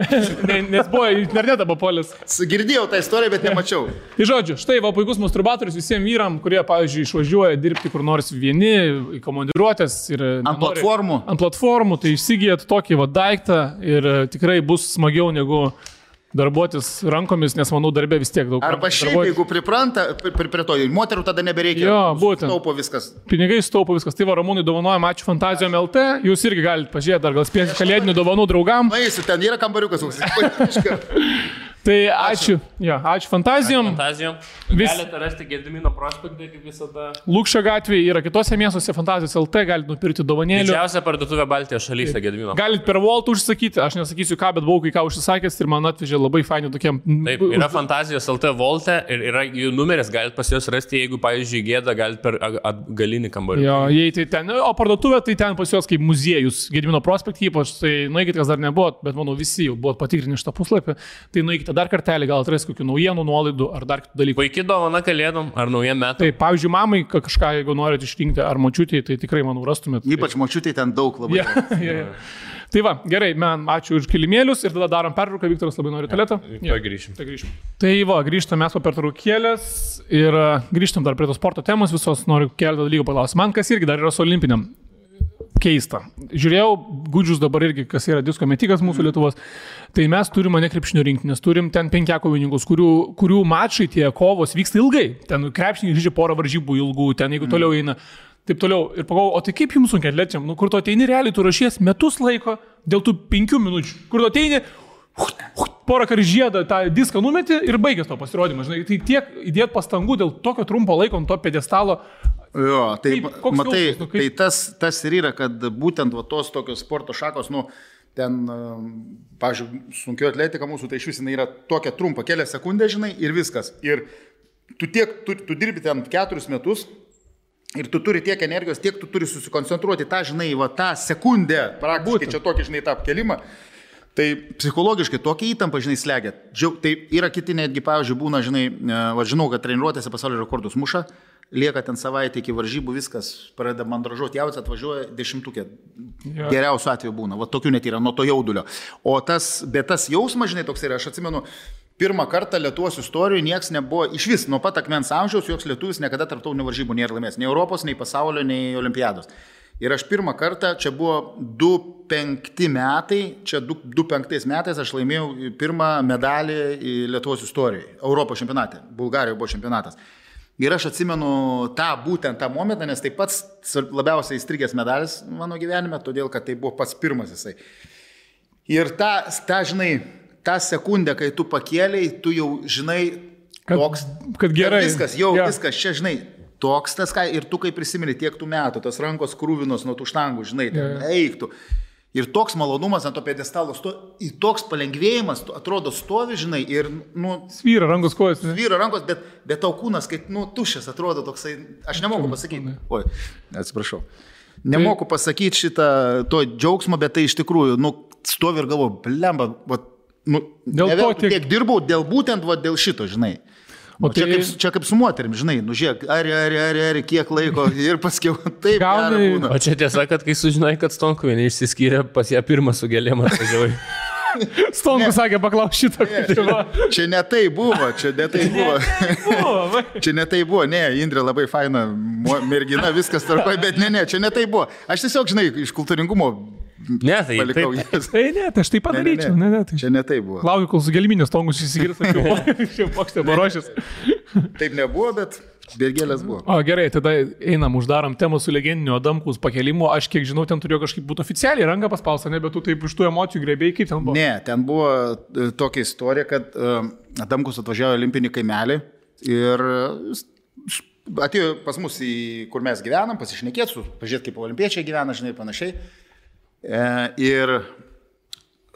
Nes buvo internetą papuolęs. Girdėjau tą istoriją, bet nemačiau. Tai žodžiu, štai va puikus masturbatorius visiems vyram, kurie, pavyzdžiui, išvažiuoja dirbti kur nors vieni, į komandiruotės ir... Ant platformų. Ant platformų, tai išsigijat tokį va daiktą ir tikrai bus smagiau negu darbuotis rankomis, nes manau darbė vis tiek daug. Arba šiaip, jeigu pripranta prie to, moterų tada nebereikia. Jo, būtent. Staupo viskas. Pinigai staupo viskas. Tai va, Ramūnai dovanojam, ačiū Fantazijom LT. Jūs irgi galite pažiūrėti, dar gal spėsite kalėdinių dovanų draugam. Nueisiu, ten yra kambariukas. Tai ačiū. Ja, ačiū Fantazijom. Fantazijom. Galite rasti Gedimino prospektą, kaip visada. Lūkščio gatvėje yra kitose miestuose Fantazijos LT, galite nupirkti dovanėlių. Didžiausia parduotuvė Baltijos šalyse Gedimino. Galite per Volt užsakyti, aš nesakysiu ką, bet buvau kai ką užsisakęs ir man atvežė labai faini tokiam. Taip, yra Fantazijos LT Volte ir yra jų numeris, galite pas juos rasti, jeigu, pavyzdžiui, gėda, galite per atgalinį kambarį. Jo, jei tai ten, o parduotuvė tai ten pas juos kaip muziejus, Gedimino prospektą ypač, tai nueikite, kas dar nebuvo, bet manau visi jau buvo patikrinę šitą puslapį, tai nueikite dar kartelį, gal atrasti kokių naujienų, nuolaidų ar dar kitų dalykų. Puikiai dovana kalėdom ar naujiem metam. Tai, pavyzdžiui, mamai kažką, jeigu norite išrinkti, ar močiutį, tai tikrai, manau, rastumėt. Ypač močiutį ten daug labai. Ja. Tai va, gerai, man ačiū už kilimėlius ir tada darom pertrauką, Viktoras labai nori tualetą. Ja, grįšim. Tai va, grįžtam mes po pertraukėlės ir grįžtam dar prie tos sporto temos visos, noriu keletą dalykų paklausti. Man kas irgi dar yra su olimpiniam keista. Žiūrėjau, Gudžius dabar irgi, kas yra disko metikas mūsų Lietuvos, tai mes turime ne krepšinio rinktinės, turim ten 5 kovininkus, kurių mačai tie kovos vyksta ilgai. Ten krepšiniai žaidžia porą varžybų ilgų, ten jeigu toliau eina. Taip toliau. Ir pagalvojau, o tai kaip jums sunkiai atlečiam? Nu, kur tu ateini realiai, tu rašies metus laiko dėl tų 5 minučių. Kur tu ateini, porą kartų žiedą tą diską numeti ir baigęs to pasirodymą. Žinai, tai tiek įdėt pastangų dėl tokio trumpo laiko ant to pedestalo. Jo, tai matai, jausmas, tai tas ir yra, kad būtent va, tos tokios sporto šakos, nu, ten, pavyzdžiui, sunkio atletika mūsų, tai iš vis jinai yra tokia trumpa, kelias sekundės, žinai, ir viskas. Ir tu dirbi ten 4 metus. Ir tu turi tiek energijos, tiek tu turi susikoncentruoti tą, žinai, va, tą sekundę, praktiškai čia tokį, žinai, tą apkelimą. Tai psichologiškai tokia įtampa, žinai, slegia. Tai yra kiti netgi, pavyzdžiui, būna, žinai, va, žinau, kad treniruotėse pasaulio rekordus muša, lieka ten savaitę iki varžybų, viskas pradeda mandražuoti, jauts atvažiuoja 10-ukė. Geriausiu atveju būna, va, tokių net yra, nuo to jaudulio. Bet tas jausmas, žinai, toks yra, aš atsimenu, pirmą kartą Lietuvos istorijoje nieks nebuvo, iš vis, nuo pat akmens amžiaus, joks lietuvis niekada tarptautinių varžybų nėra laimėjęs. Nei Europos, nei pasaulio, nei olimpiados. Ir aš pirmą kartą, čia buvo 2005 metai, čia 2005 metais aš laimėjau pirmą medalį Lietuvos istorijoje, Europos čempionate, Bulgarijoje buvo čempionatas. Ir aš atsimenu būtent tą momentą, nes tai pats labiausiai įstrigęs medalis mano gyvenime, todėl kad tai buvo pats pirmas jisai. Ir žinai, tą sekundę, kai tu pakėliai, tu jau žinai, kad gerai. Viskas, viskas, čia žinai, toks tas, ir tu kaip prisimeni tiek tų metų, tos rankos krūvinos nuo tų štangų, žinai, eiktų. Ir toks malonumas ant to pedestalo, toks palengvėjimas, atrodo stovi, žinai, ir, nu... Svyra rankos kojas. Svyra rankos, bet tau kūnas, kaip, nu, tuščias atrodo toksai, aš nemoku pasakyti. Oi, atsiprašau. Nemoku pasakyti šitą, to džiaugsmo, bet tai iš tikrųjų, nu, stovi ir galvoju, blemba, nu, tiek dirbau, būtent dėl šito, žinai. O čia kaip su moterim, žinai, nu žiūrėk, ar, kiek laiko ir paskiau taip gera būna. O čia tiesa, kad kai sužinai, kad Stonkuvienė išsiskyrė, pas ją pirmą su gėlėm atvažiavai. Stonku sakė, paklaus šitą. Čia ne tai buvo, Čia ne tai buvo, ne, Indrė labai faina mergina, viskas tarpai, bet ne, čia ne tai buvo. Aš tiesiog, žinai, iš kultūringumo palikau jas. Tai aš taip padaryčiau. Čia ne tai buvo. Laukiu, kol su gėliminės Stonkus išsigirs, jau pokštė barošės. Taip nebuvo, bet gėlės buvo. O gerai, tada einam, uždarom temą su legendiniu Adamkaus pakelimu. Aš kiek žinau, ten turėjo kažkaip būti oficialiai ranką paspausta, bet tu taip iš tų emocijų grebėjai, kaip ten buvo? Ne, ten buvo tokia istorija, kad Adamkus atvažiavo į olimpinį kaimelį ir atėjo pas mus, kur mes gyvenam, pasišnekėti, pažiūrėti, kaip olimpiečiai gyvena, žinai, panašiai. Ir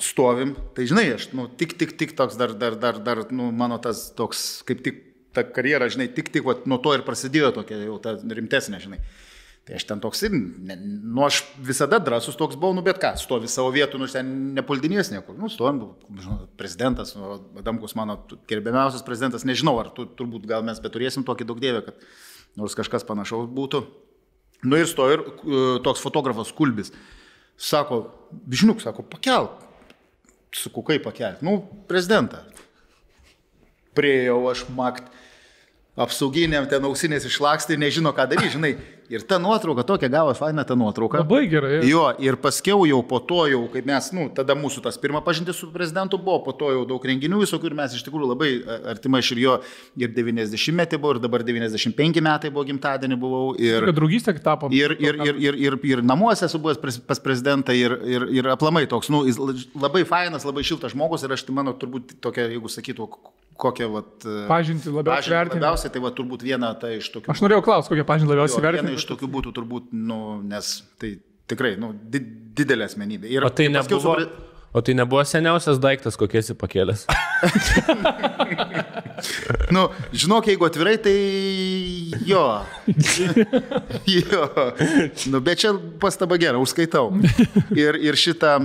stovim, tai žinai, aš, nu, tik toks dar, nu, mano tas toks, kaip tik ta karjera, žinai, tik, nuo to ir prasidėjo tokia jau ta rimtesnė, žinai. Tai aš ten toks ir, aš visada drąsus toks buvau, bet ką, stovi savo vietų, ten nepuldinės niekur. Stovim, prezidentas, Adamkus mano gerbiamiausias prezidentas, nežinau, ar turbūt gal mes beturėsim tokį daug dievę, kad nors kažkas panašaus būtų. Ir stovi ir toks fotografas Kulbis. Sako, Bižniuk, sako, pakelk. Sakau, kaip pakelti? Prezidentą. Priejau aš makt. Apsauginiam ten ausinės išlakstė ir nežino, ką daryti, žinai. Ir ta nuotrauka, tokia gavo faina ta nuotrauka. Labai gerai. Jo, ir paskiau jau po to, jau kaip mes, tada mūsų tas pirma pažintis su prezidentu buvo, po to jau daug renginių visokių ir mes iš tikrųjų labai artimai iš ir jo ir 90-metį buvo, ir dabar 95 metai buvo gimtadienį buvau. Ir draugystė tapo. Ir namuose esu buvęs pas prezidentą ir aplamai toks, jis labai fainas, labai šiltas žmogus ir aš tai mano turbūt tokia, jeigu sakytų, kokią pažintį labiausiai, tai turbūt viena ta iš tokių. Aš norėjau klausti, kokią pažintį labiausiai vertinti. Viena iš tokių būtų turbūt, nes tai tikrai, didelė asmenybė. Ir o tai nebuvo seniausias daiktas, kokį esi pakėlęs? Žinok, jeigu atvirai, tai jo. Bet čia pastaba gera, užskaitau. Ir šitą,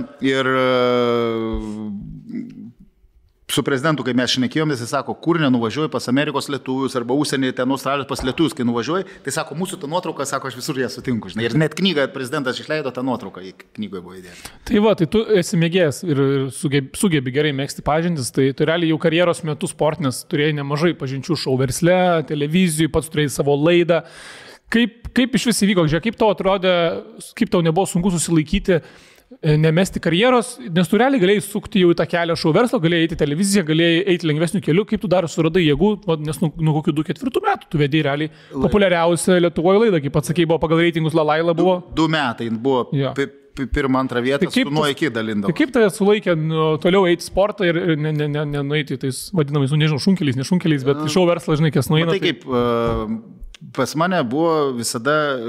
su prezidentu, kai mes šnekėjom, jis sako, kur nenuvažiuoji pas Amerikos lietuvius arba užsienį, ten Australijos pas lietuvius, kai nuvažiuoji, tai sako, mūsų ta nuotrauka, sako, aš visur ją sutinku, žinai. Ir net knygą prezidentas išleido tą nuotrauką, į knygoje buvo įdėta. Tai tu esi mėgėjas ir sugebi gerai mėgsti pažintis, tai realiai jau karjeros metu sportinės turėjai nemažai pažinčių šou versle, televizijų, pats turėjai savo laidą. Kaip iš vis įvyko, žiūrėk, kaip tau atrodė, kaip tau nebuvo sunku susilaikyti, nemesti karjeros, nes tu realiai galėjai sukti jau į tą kelią šou verslo, galėjai eiti į televiziją, galėjai eiti lengvesnių kelių, kaip tu dar suradai jėgų, nes nuo kokių 2-4 metų tu vedėjai realiai populiariausią Lietuvoje laidą, kaip pats sakei, buvo pagal reitingus Lalaila buvo. 2 metai buvo pirmą, antrą vietą, tai nuo iki dalindavo. Tai kaip tave sulaikė toliau eiti sportą ir nenueiti tais vadinamais, nežinau, šunkeliais, bet šou verslas, žinai, kas nueina. Tai kaip pas mane buvo visada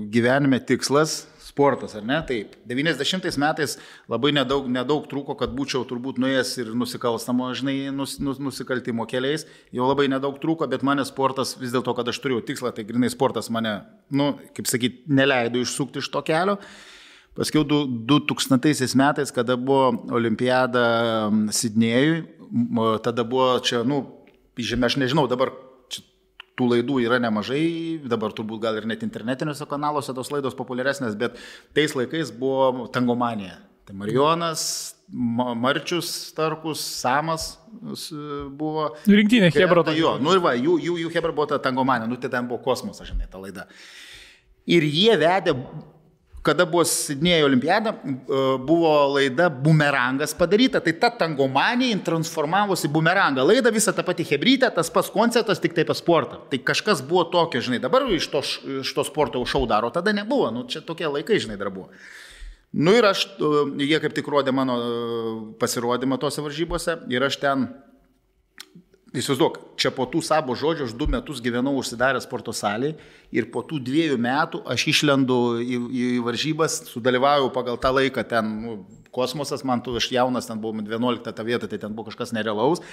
gyvenime tikslas sportas, ar ne? Taip. 90 metais labai nedaug trūko, kad būčiau turbūt nuėjęs ir nusikalstamo, žinai, nusikaltimo keliais. Jau labai nedaug trūko, bet mane sportas, vis dėlto, kad aš turėjau tikslą, tai grinai sportas mane, kaip sakyti, neleido išsukti iš to kelio. Paskiau 2000 metais, kada buvo olimpiada Sidnėjui, tada buvo čia, aš nežinau, dabar tų laidų yra nemažai, dabar turbūt gal ir net internetiniuose kanaluose tos laidos populiaresnės, bet tais laikais buvo tangomanija. Tai Marijonas, Marčius, Starkus, Samas buvo. Rinktinė Hebra. Jų Hebra buvo ta tangomanija, tai ten buvo kosmosas, žinai, ta laida. Ir jie vedė, kada buvo Sidnėjo olimpiada, buvo laida Bumerangas padaryta, tai ta tangomanija transformavosi Bumerangą. Laida visą tą patį hebrytę, tas pats koncertas, tik taip sportą. Tai kažkas buvo tokio, žinai, dabar iš to sporto šou daro, tada nebuvo, čia tokie laikai, žinai, dar buvo. Ir jie kaip tik rodė mano pasirodymą tose varžybose ir aš ten, įsivaizduok, čia po tų savo žodžių aš 2 metus gyvenau užsidarę sporto salėje ir po tų 2 metų aš išlendu į varžybas, sudalyvauju pagal tą laiką, ten kosmosas, aš jaunas, ten buvau 11 tą vietą, tai ten buvo kažkas nerealaus.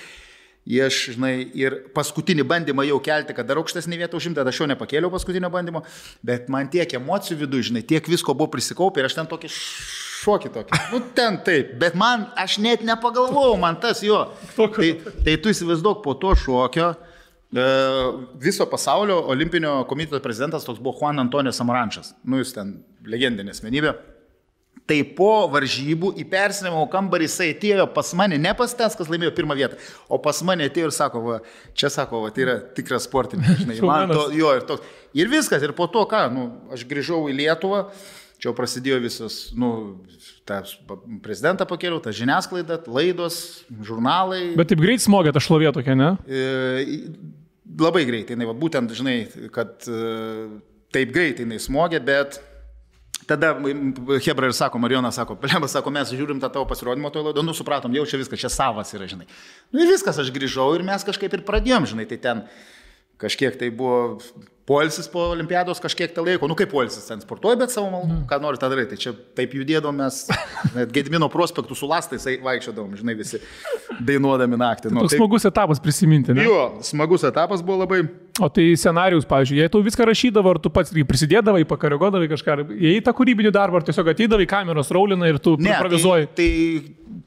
Ir paskutinį bandymą jau kelti, kad dar aukštesnį vietą užimti, aš jau nepakėliau paskutinio bandymo, bet man tiek emocijų viduje, žinai, tiek visko buvo prisikaupę ir aš ten tokį šokį tokį. Ten taip, bet aš net nepagalvojau, man tas jo. Tai tu įsivaizduok, po to šokio viso pasaulio olimpinio komiteto prezidentas toks buvo Juan Antonio Samarančas. Jis ten legendinė asmenybė. Tai po varžybų į persinimo kambarį jisai atėjo pas mane, ne pas tas, kas laimėjo pirmą vietą, o pas mane atėjo ir sako, čia sako, tai yra tikras sportininkas, žinai, ir viskas, ir po to ką, aš grįžau į Lietuvą, čia prasidėjo visas, tą prezidentą pakėliau, tą žiniasklaidą, laidos, žurnalai. Bet taip greit smogė ta šlovė tokia, ne? Labai greitai, būtent, žinai, kad taip greitai smogė, bet tada Hebra ir sako, Marijonas sako, Pelėmas sako, mes žiūrim tą tavo pasirodymą toje laidoje, supratom, jau čia viskas, čia savas yra, žinai. Ir viskas, aš grįžau ir mes kažkaip ir pradėjom, žinai, tai ten kažkiek tai buvo poilsis po olimpiados kažkiek tą laiko, nu kaip poilsis, ten sportuoji, bet savo malonu, ką nori tą daryti. Tai čia taip judėdom mes, net Gedimino prospektų su lastais vaikščiodom, žinai, visi dainuodami naktį. Tai toks smagus etapas prisiminti, ne? Jo, smagus etapas buvo labai. O tai scenarius, pavyzdžiui, jei tu viską rašydavo, ar tu pats prisidėdavai, pakaregodavai kažką, jei tą kūrybinį darbą, ar tiesiog ateidavai kameros raulina ir tu improvizuoji? Tai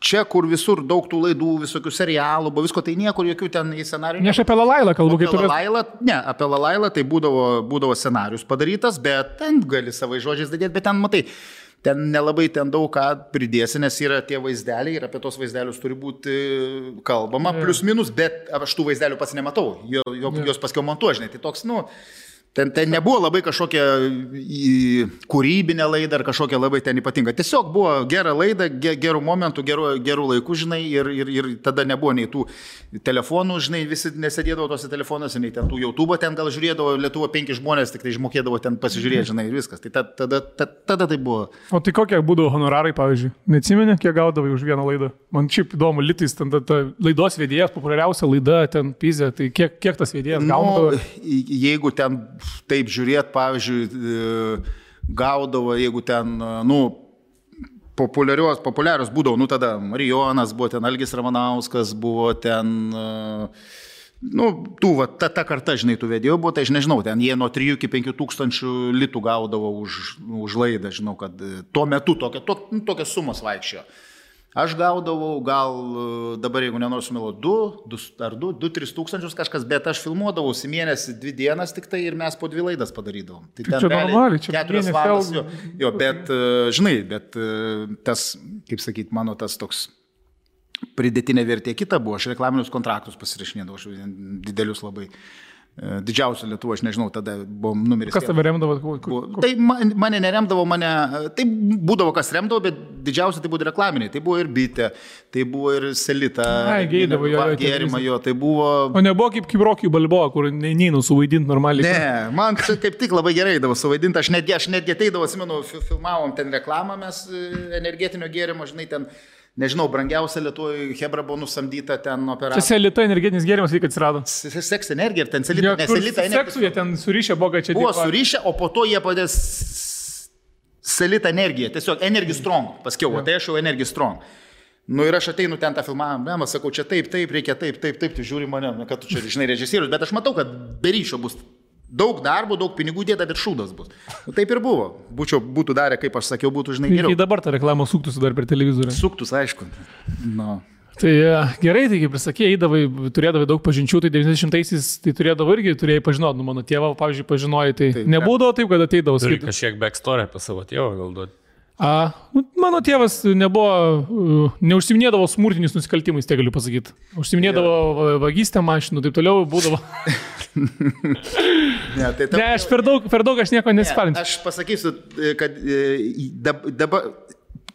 čia, kur visur daug tų laidų, visokių serialų, buvo visko, tai niekur jokių ten į scenarijų. Ne aš apie Lalailą kalbu, kaip tu... Ne, apie Lalailą tai būdavo scenarius padarytas, bet ten gali savai žodžiais dadėti, bet ten, matai, ten nelabai ten daug ką pridėsi, nes yra tie vaizdeliai ir apie tos vaizdelius turi būti kalbama, plius minus, bet aš tų vaizdelių pats nematau, jos paskiau montuoju, žinai, tai toks, nu... Ten nebuvo labai kažkokia kūrybinė laida ar kažkokia labai ten ypatinga. Tiesiog buvo gera laida, gerų momentų, gerų laikų, žinai, ir tada nebuvo nei tų telefonų, žinai, visi nesėdėdavo tose telefonuose, nei ten tų YouTube ten gal žiūrėdavo, Lietuva 5 žmonės tik tai išmokėdavo ten pasižiūrėti, žinai, ir viskas. Tai tada tai buvo. O tai kokie būdavo honorarai, pavyzdžiui? Neatsimeni, kiek gaudavai už vieną laidą? Man šiaip įdomu, litais, ten ta laidos vedėjas, populiariausia laida, ten Pizė, tai kiek tas vedėjas gaudavo? Jeigu ten taip žiūrėt, pavyzdžiui, gaudavo, jeigu ten, nu, populiarios būdavo, nu, tada Marijonas buvo, ten Algis Ramanauskas buvo, ten, nu, ta karta, žinai, tų vedėjų buvo, tai aš nežinau, ten jie nuo 3 iki 5 tūkstančių litų gaudavo už laidą, žinau, kad tuo metu tokias sumas vaikščiojo. Aš gaudavau gal dabar, jeigu nenoriu sumeluoti, 2-3 tūkstančius kažkas, bet aš filmuodavausi mėnesį 2 dienas tik tai ir mes po 2 laidas padarydavom. Tai čia normaliai, čia 4 valandas. Jo, bet, žinai, bet tas, kaip sakyti, mano tas toks pridėtinė vertė kita buvo, aš reklaminius kontraktus pasirašinėdavau, aš didelius labai. Didžiausia Lietuva, aš nežinau, tada buvo numeris. Kas tave remdavo? Tai mane neremdavo, tai būdavo kas remdavo, bet didžiausia tai buvo reklaminiai. Tai buvo ir Bitė, tai buvo ir Selita. Geidavo jo. Gėrimą jo, tai buvo... O nebuvo kaip Rocky Balboa, kur neįnu suvaidinti normaliai. Ne, man čia kaip tik labai gerai davo suvaidinti. Aš netgi ateidavo, atsimenu, filmavom ten reklamą, mes energetinio gėrimo, žinai, ten... Nežinau, brangiausia Lietuvoje Hebra buvo nusamdyta ten operacija. Čia Selita energinis gėrimas, kai atsirado. Seks energija ir ten Selita. Ja, Selita seksu jie ten surišę, buvo, čia buvo surišę, o po to jie padės Selita energija. Tiesiog Energy Strong. Paskiau, ja. Tai aš jau Energy Strong. Nu ir aš ateinu ten tą filmavimą, sakau, čia taip, reikia taip, tu žiūri mane, kad tu čia, žinai, režisierius, bet aš matau, kad be ryšio bus daug darbo, daug pinigų dėta, bet šūdas bus. Nu, taip ir buvo. Būtų darę, kaip aš sakiau, būtų, žinai, geriau. Ir dabar ta reklama suktųsi dar per televizorių. Suktus, aišku. No. Tai gerai, tai kaip ir sakė, turėdavai daug pažinčių, tai 90-aisiais tai turėjai pažinoti, nu mano tėvą, pavyzdžiui, pažinojai, tai taip, nebūdavo taip, kad ateidavo skirti. Turi kažkiek backstory apie savo tėvą gal duoti. Mano tėvas neužsiminėdavo smurtiniais nusikaltimais, tai galiu pasakyti. Užsiminėdavo vagystę mašinų, taip toliau būdavo. Ne, aš per daug aš nieko nesipalinsiu. Aš pasakysiu, kad dabar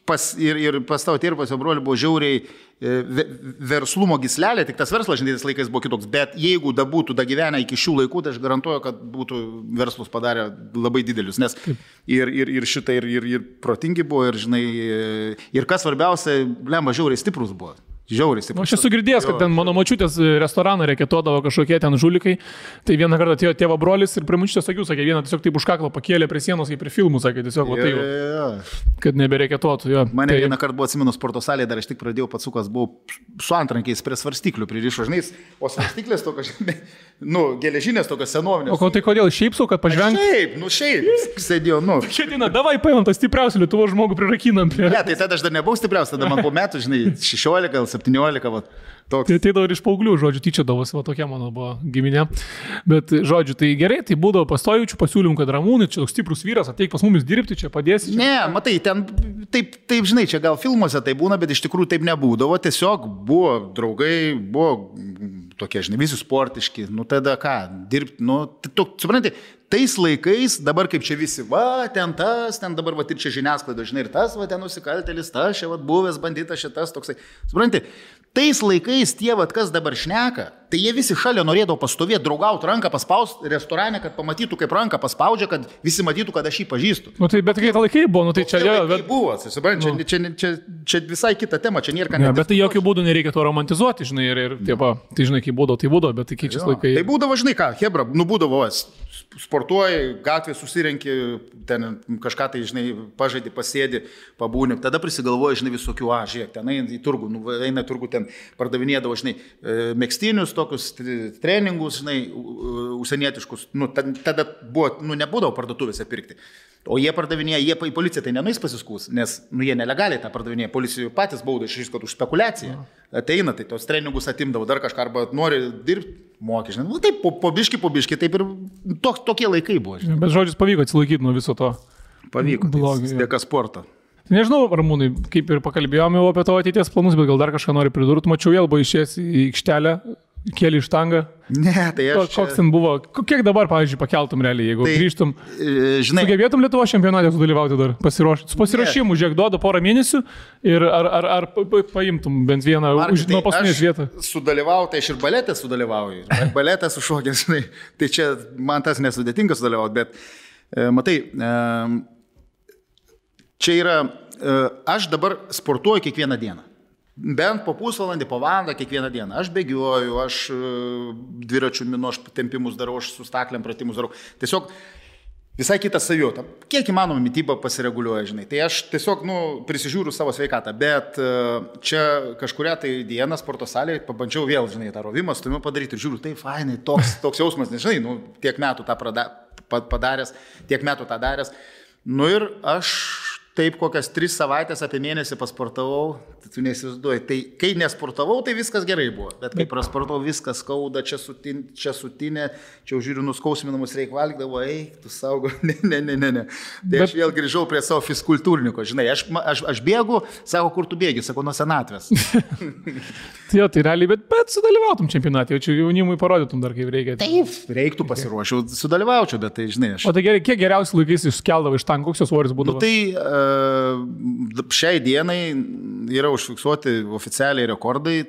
pas tavo tėvą, pas jo brolį buvo žiauriai verslumo gyslelė, tik tas verslas šiandienis laikais buvo kitoks, bet jeigu būtų gyvenę iki šių laikų, tai aš garantuoju, kad būtų verslus padarę labai didelius, nes ir šitai, ir protingi buvo, ir žinai, ir kas svarbiausia, lemba žiauriai stiprus buvo. Žiauriai. Aš esu girdėjęs, kad ten mano močiutės restoraną reketodavo kažkokie ten žulikai. Tai vieną kartą atėjo tėvo brolis ir prie močiutės akių, sakė, vieną tiesiog taip už kaklą pakėlė prie sienos, kaip prie filmų, sakė, tiesiog, kad nebereketotų. Mane vieną kartą buvo, atsimenu, sporto salėje, dar aš tik pradėjau, patsukas, buvau su antrankiais prie svarstyklių pririšo, žinai, o svarstyklės tokios, geležinės tokios senovinės. O tai kodėl šiaip sau, kad pažvengti? Šiaip, sėdėjau, Šiandieną, davai paimam tą stipriausią Lietuvos žmogų prirakinam. Ne, tai tada aš dar nebuvau stipriausias, tada man po metų, žinai, 16, 17, va, toks. Tai ateidavo ir iš paauglių, žodžiu, tyčiodavosi, va tokia mano buvo giminė. Bet, žodžiu, tai gerai, tai būdavo pastojučių pasiūlymų, kad Ramūnai, čia toks stiprus vyras, ateik pas mumis dirbti, čia padėsi. Čia. Ne, matai, ten, taip, žinai, čia gal filmuose tai būna, bet iš tikrųjų taip nebūdavo, tiesiog buvo draugai, buvo tokie, žinai, visi sportiški, tada ką, dirbti, supranti, tais laikais, dabar kaip čia visi, ten dabar, ir čia žiniasklaida, žinai, ir tas, ten nusikaltėlis, tas, čia, buvęs banditas, šitas, toksai. Supranti, tais laikais tie, kas dabar šneka, Tai jie visi šalia norėdavo pastovėti, draugauti, ranką paspausti restorane, kad pamatytų, kaip ranką paspaudžia, kad visi matytų, kad aš jį pažįstu. Nu, tai bet kai tą laikai buvo, nu, tai čia jau... Bet... buvo, čia visai kita tema, čia nėra ką ne. Bet tai jokių būdų nereikia to romantizuoti, žinai, ir tiepa, tai žinai, kai būdavo, bet tai keičiasi laikai. Tai būdavo, žinai ką, hebra, būdavo, sportuoji, gatvė susirenki, ten kažką tai, žinai, pažaidži, pasėdi, pabūni, tada prisigalvoji, žinai, visokių, žiūrėk, ten eina į turgų, eina į turgų, ten pardavinėdavo, žinai, megstinius, tokius treningus, žinai, užsienietiškus, tada buvo, nebūdavo parduotuvėse pirkti. O jie pardavinėja, jie į policiją tai nenuės pasiskūs, nes jie nelegaliai tą pardavinėja, policijų patys bauda išriškot už spekulaciją. Ateina, tai tos treningus atimdavo dar kažką, arba nori dirbti, moki, žinai, taip, po biški, taip ir tokie laikai buvo. Žinai. Bet žodžius pavyko atsilaikyti nuo viso to. Pavyko, tai dėka sporto. Nežinau, Ramūnai, kaip ir pakalbėjome jau apie tavo ateities planus, bet gal dar kažką nori pridurti. Mačiau, vėl buvo išėjęs į aikštelę, kėlį štangą. Ne, tai aš... Koks ten buvo? Kiek dabar, pavyzdžiui, pakeltum realiai, jeigu grįžtum? Žinai... Sugebėtum Lietuvos čempionate sudalyvauti dar? Su pasiruošimu, žiūrėk, duoda porą mėnesių ir ar paimtum bent vieną nuo paskutinės vietą? Sudalyvauti, aš ir baletę sudalyvauju. Baletę sušokęs, žinai. Tai čia man tas nesudėtinga sudalyvauti, bet matai, čia yra, aš dabar sportuoju kiekvieną dieną. Bent po pusvalandį, po valandą kiekvieną dieną. Aš bėgioju, aš dviračių minuos tempimus darau, aš su staklėm pratimus darau. Tiesiog visai kitą savijautą. Kiek įmanoma mityba pasireguliuoja, žinai. Tai aš tiesiog, prisižiūriu savo sveikatą. Bet čia kažkuria tai dieną sporto salėje pabandžiau vėl, žinai, tą rovimą, stumiu padaryti ir žiūriu, tai fainai, toks jausmas, nežinai, tiek metų tą padaręs, tiek metų tą daręs. Ir aš taip kokias 3 savaitės apie mėnesį pasportavau, tu neįsivaizduoji. Tai kai nesportavau, tai viskas gerai buvo. Bet kai prasportavau, viskas skauda, čia sutinė, čia žiūriu, nuskausminamus reik valgydavo, tu saugo, ne. Tai aš vėl grįžau prie savo fiskultūrniko, žinai, aš bėgu, sako, kur tu bėgi, sako, nuo senatvės. Tai realiai, bet sudalyvautum čempionatė, jau čia jaunimui parodytum dar kaip reikia. Taip, reiktų pasiruošiau, sudalyvaučiau, bet tai, žinai, aš... O tai gerai, kiek geriausiai laikais išskeldavo iš tankų, koks jos svoris būdavo? Šiai dienai yra užfiksuoti oficialiai rekordai,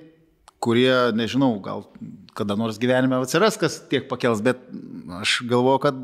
kurie, nežinau, gal kada nors gyvenime atsiras, kas tiek pakels, bet aš galvoju, kad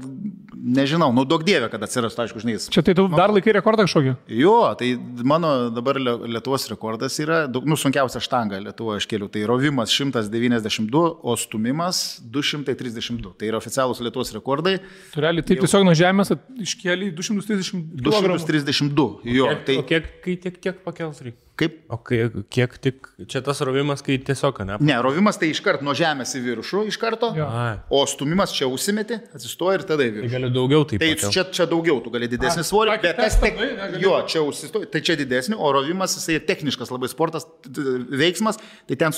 nežinau, duok dievė, kad atsiras, aišku, žinai. Čia tai tu dar laikai rekordą kažkokį? Jo, tai mano dabar Lietuvos rekordas yra, sunkiausia štanga Lietuvoje aš kėliau, tai rovimas 192, o stumimas 232. Tai yra oficialūs Lietuvos rekordai. Tu realiai taip tiesiog nuo žemės iškėlė 232. 232, jo. O kiek pakels reikia? Kaip? O kiek tik, čia tas rovimas, kai tiesiog, ne? Ne, rovimas tai iškart nuo žemės į viršų iš karto, o stumimas čia užsimeti, atsistoja ir tada į viršų. Tai gali daugiau taip. Tai čia daugiau, tu gali didesnį svorį, bet tas čia užsistoja, tai čia didesnį, o rovimas jisai techniškas labai sportas, veiksmas, tai ten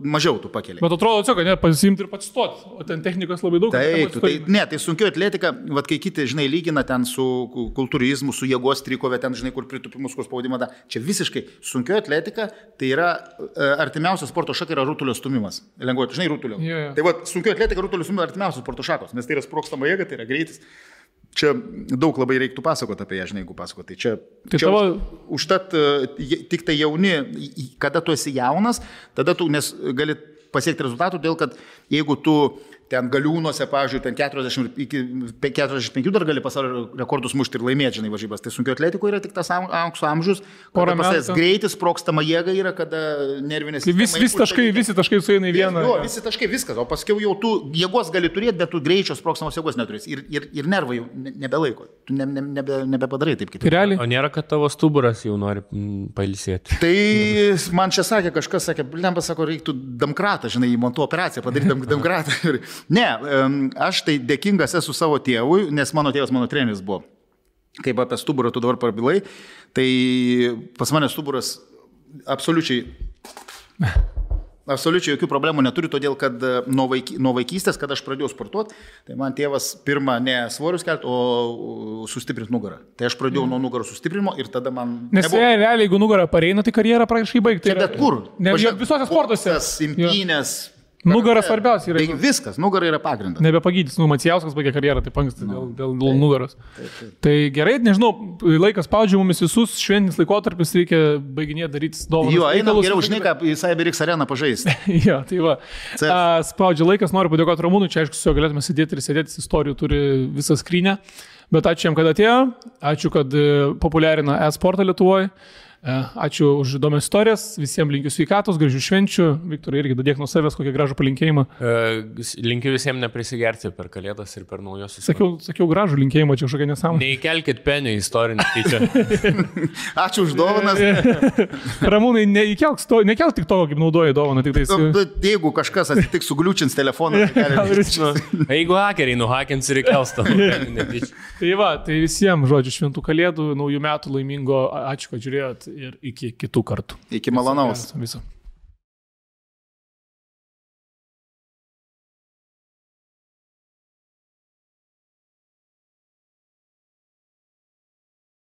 mažiau tu pakeli. Bet atrodo, kad ne, pasimti ir patsistoti, o ten technikos labai daug. Tai sunkio atletika, kai kiti, žinai, lygina ten su kultūrizmu, su jėgos trikove, ten, žinai, kur pritupimus, kur spaudimą, čia visiškai sunkioji atletika, tai yra artimiausias sporto šaka yra rutulio stumimas. Lengvoji, žinai, rutulio. Yeah. Tai sunkioji atletika, rutulio stumimas artimiausias sporto šakos, nes tai yra sprogstama jėga, tai yra greitis. Čia daug labai reiktų pasakoti apie ją, žinai, jeigu pasakoti. Tai čia užtat tik tai jauni, kada tu esi jaunas, tada tu gali pasiekti rezultatų, dėl kad jeigu tu ten galiūnuose, pavyzdžiui, ten 40 iki 45 dar gali pasaulio rekordus mušti ir laimėti, žinai, varžybas. Tai sunkio atletiko yra tik tas aukso amžius, kada pasės greitis, sprogstama jėga yra, kada nervinės... Visi taškai sueina į vieną. Jo, visi taškai, viskas, o paskiau jau tu jėgos gali turėti, bet tu greičio sprogstamos jėgos neturėsi. Ir nervai jau nebelaiko. Tu nebepadarai taip kitaip. O nėra, kad tavo stuburas jau nori pailsėti? Tai man čia sakė, kažkas sakė, reiktų damkratą, žinai, įmontų operaciją padaryti damkratą. Ne, aš tai dėkingas esu savo tėvui, nes mano tėvas mano treneris buvo. Kaip apie stuburą tu dabar prabilai, tai pas mane stuburas absoliučiai jokių problemų neturi, todėl kad nuo vaikystės, kad aš pradėjau sportuoti, tai man tėvas pirmą ne svorius kelti, o sustiprinti nugarą. Tai aš pradėjau nuo nugaros sustiprinimo ir tada man... Nes realiai, jeigu nugarą pareina, tai karjerą praktiškai baigti. Bet kur? Visose sportuose. Imtynės, Nugara svarbiausia yra. Tai viskas, nugara yra pagrindas. Nebepagydys, Macijauskas baigė karjerą, taip anksti dėl nugaros. Tai gerai, nežinau, laikas spaudžia mumis visus, šventinis laikotarpis reikia baiginėti daryti dovanas. Jo, einam geriau, žinai, ką į CyberX areną pažaisti. Jo, tai va. Spaudžia laikas, noriu padėkoti Ramūnui, čia aišku, su juo galėtume sėdėti ir sėdėti, istorijų turi visą skrynę. Bet ačiū jam, kad atėjo, ačiū, kad populiarina e-sportą Lietuvoje. Ačiū už įdomias istorijas, visiems linkiu sveikatos, gražių švenčių. Viktorai, irgi dadėk nuo savęs kokį gražų palinkėjimą. Linkiu visiems neprisigerti per Kalėdas ir per naujosius. Sakiau gražų linkėjimą, čia kažkokia nesąmonė. Neįkelkit penio istorinį tyčia. Ačiū už dovanas. Ramūnai, nekelk tik to, kaip naudoji dovaną. Jeigu kažkas atsitiks sugliučins telefoną, jeigu hakeriai nuhakins ir įkels tą. Tai va, tai visiems, žodžiu, šventų Kalėdų, naujų metų laimingo, ačiū, kad žiūrėjot. Ir iki kitų kartų. Iki malonaus. Viso.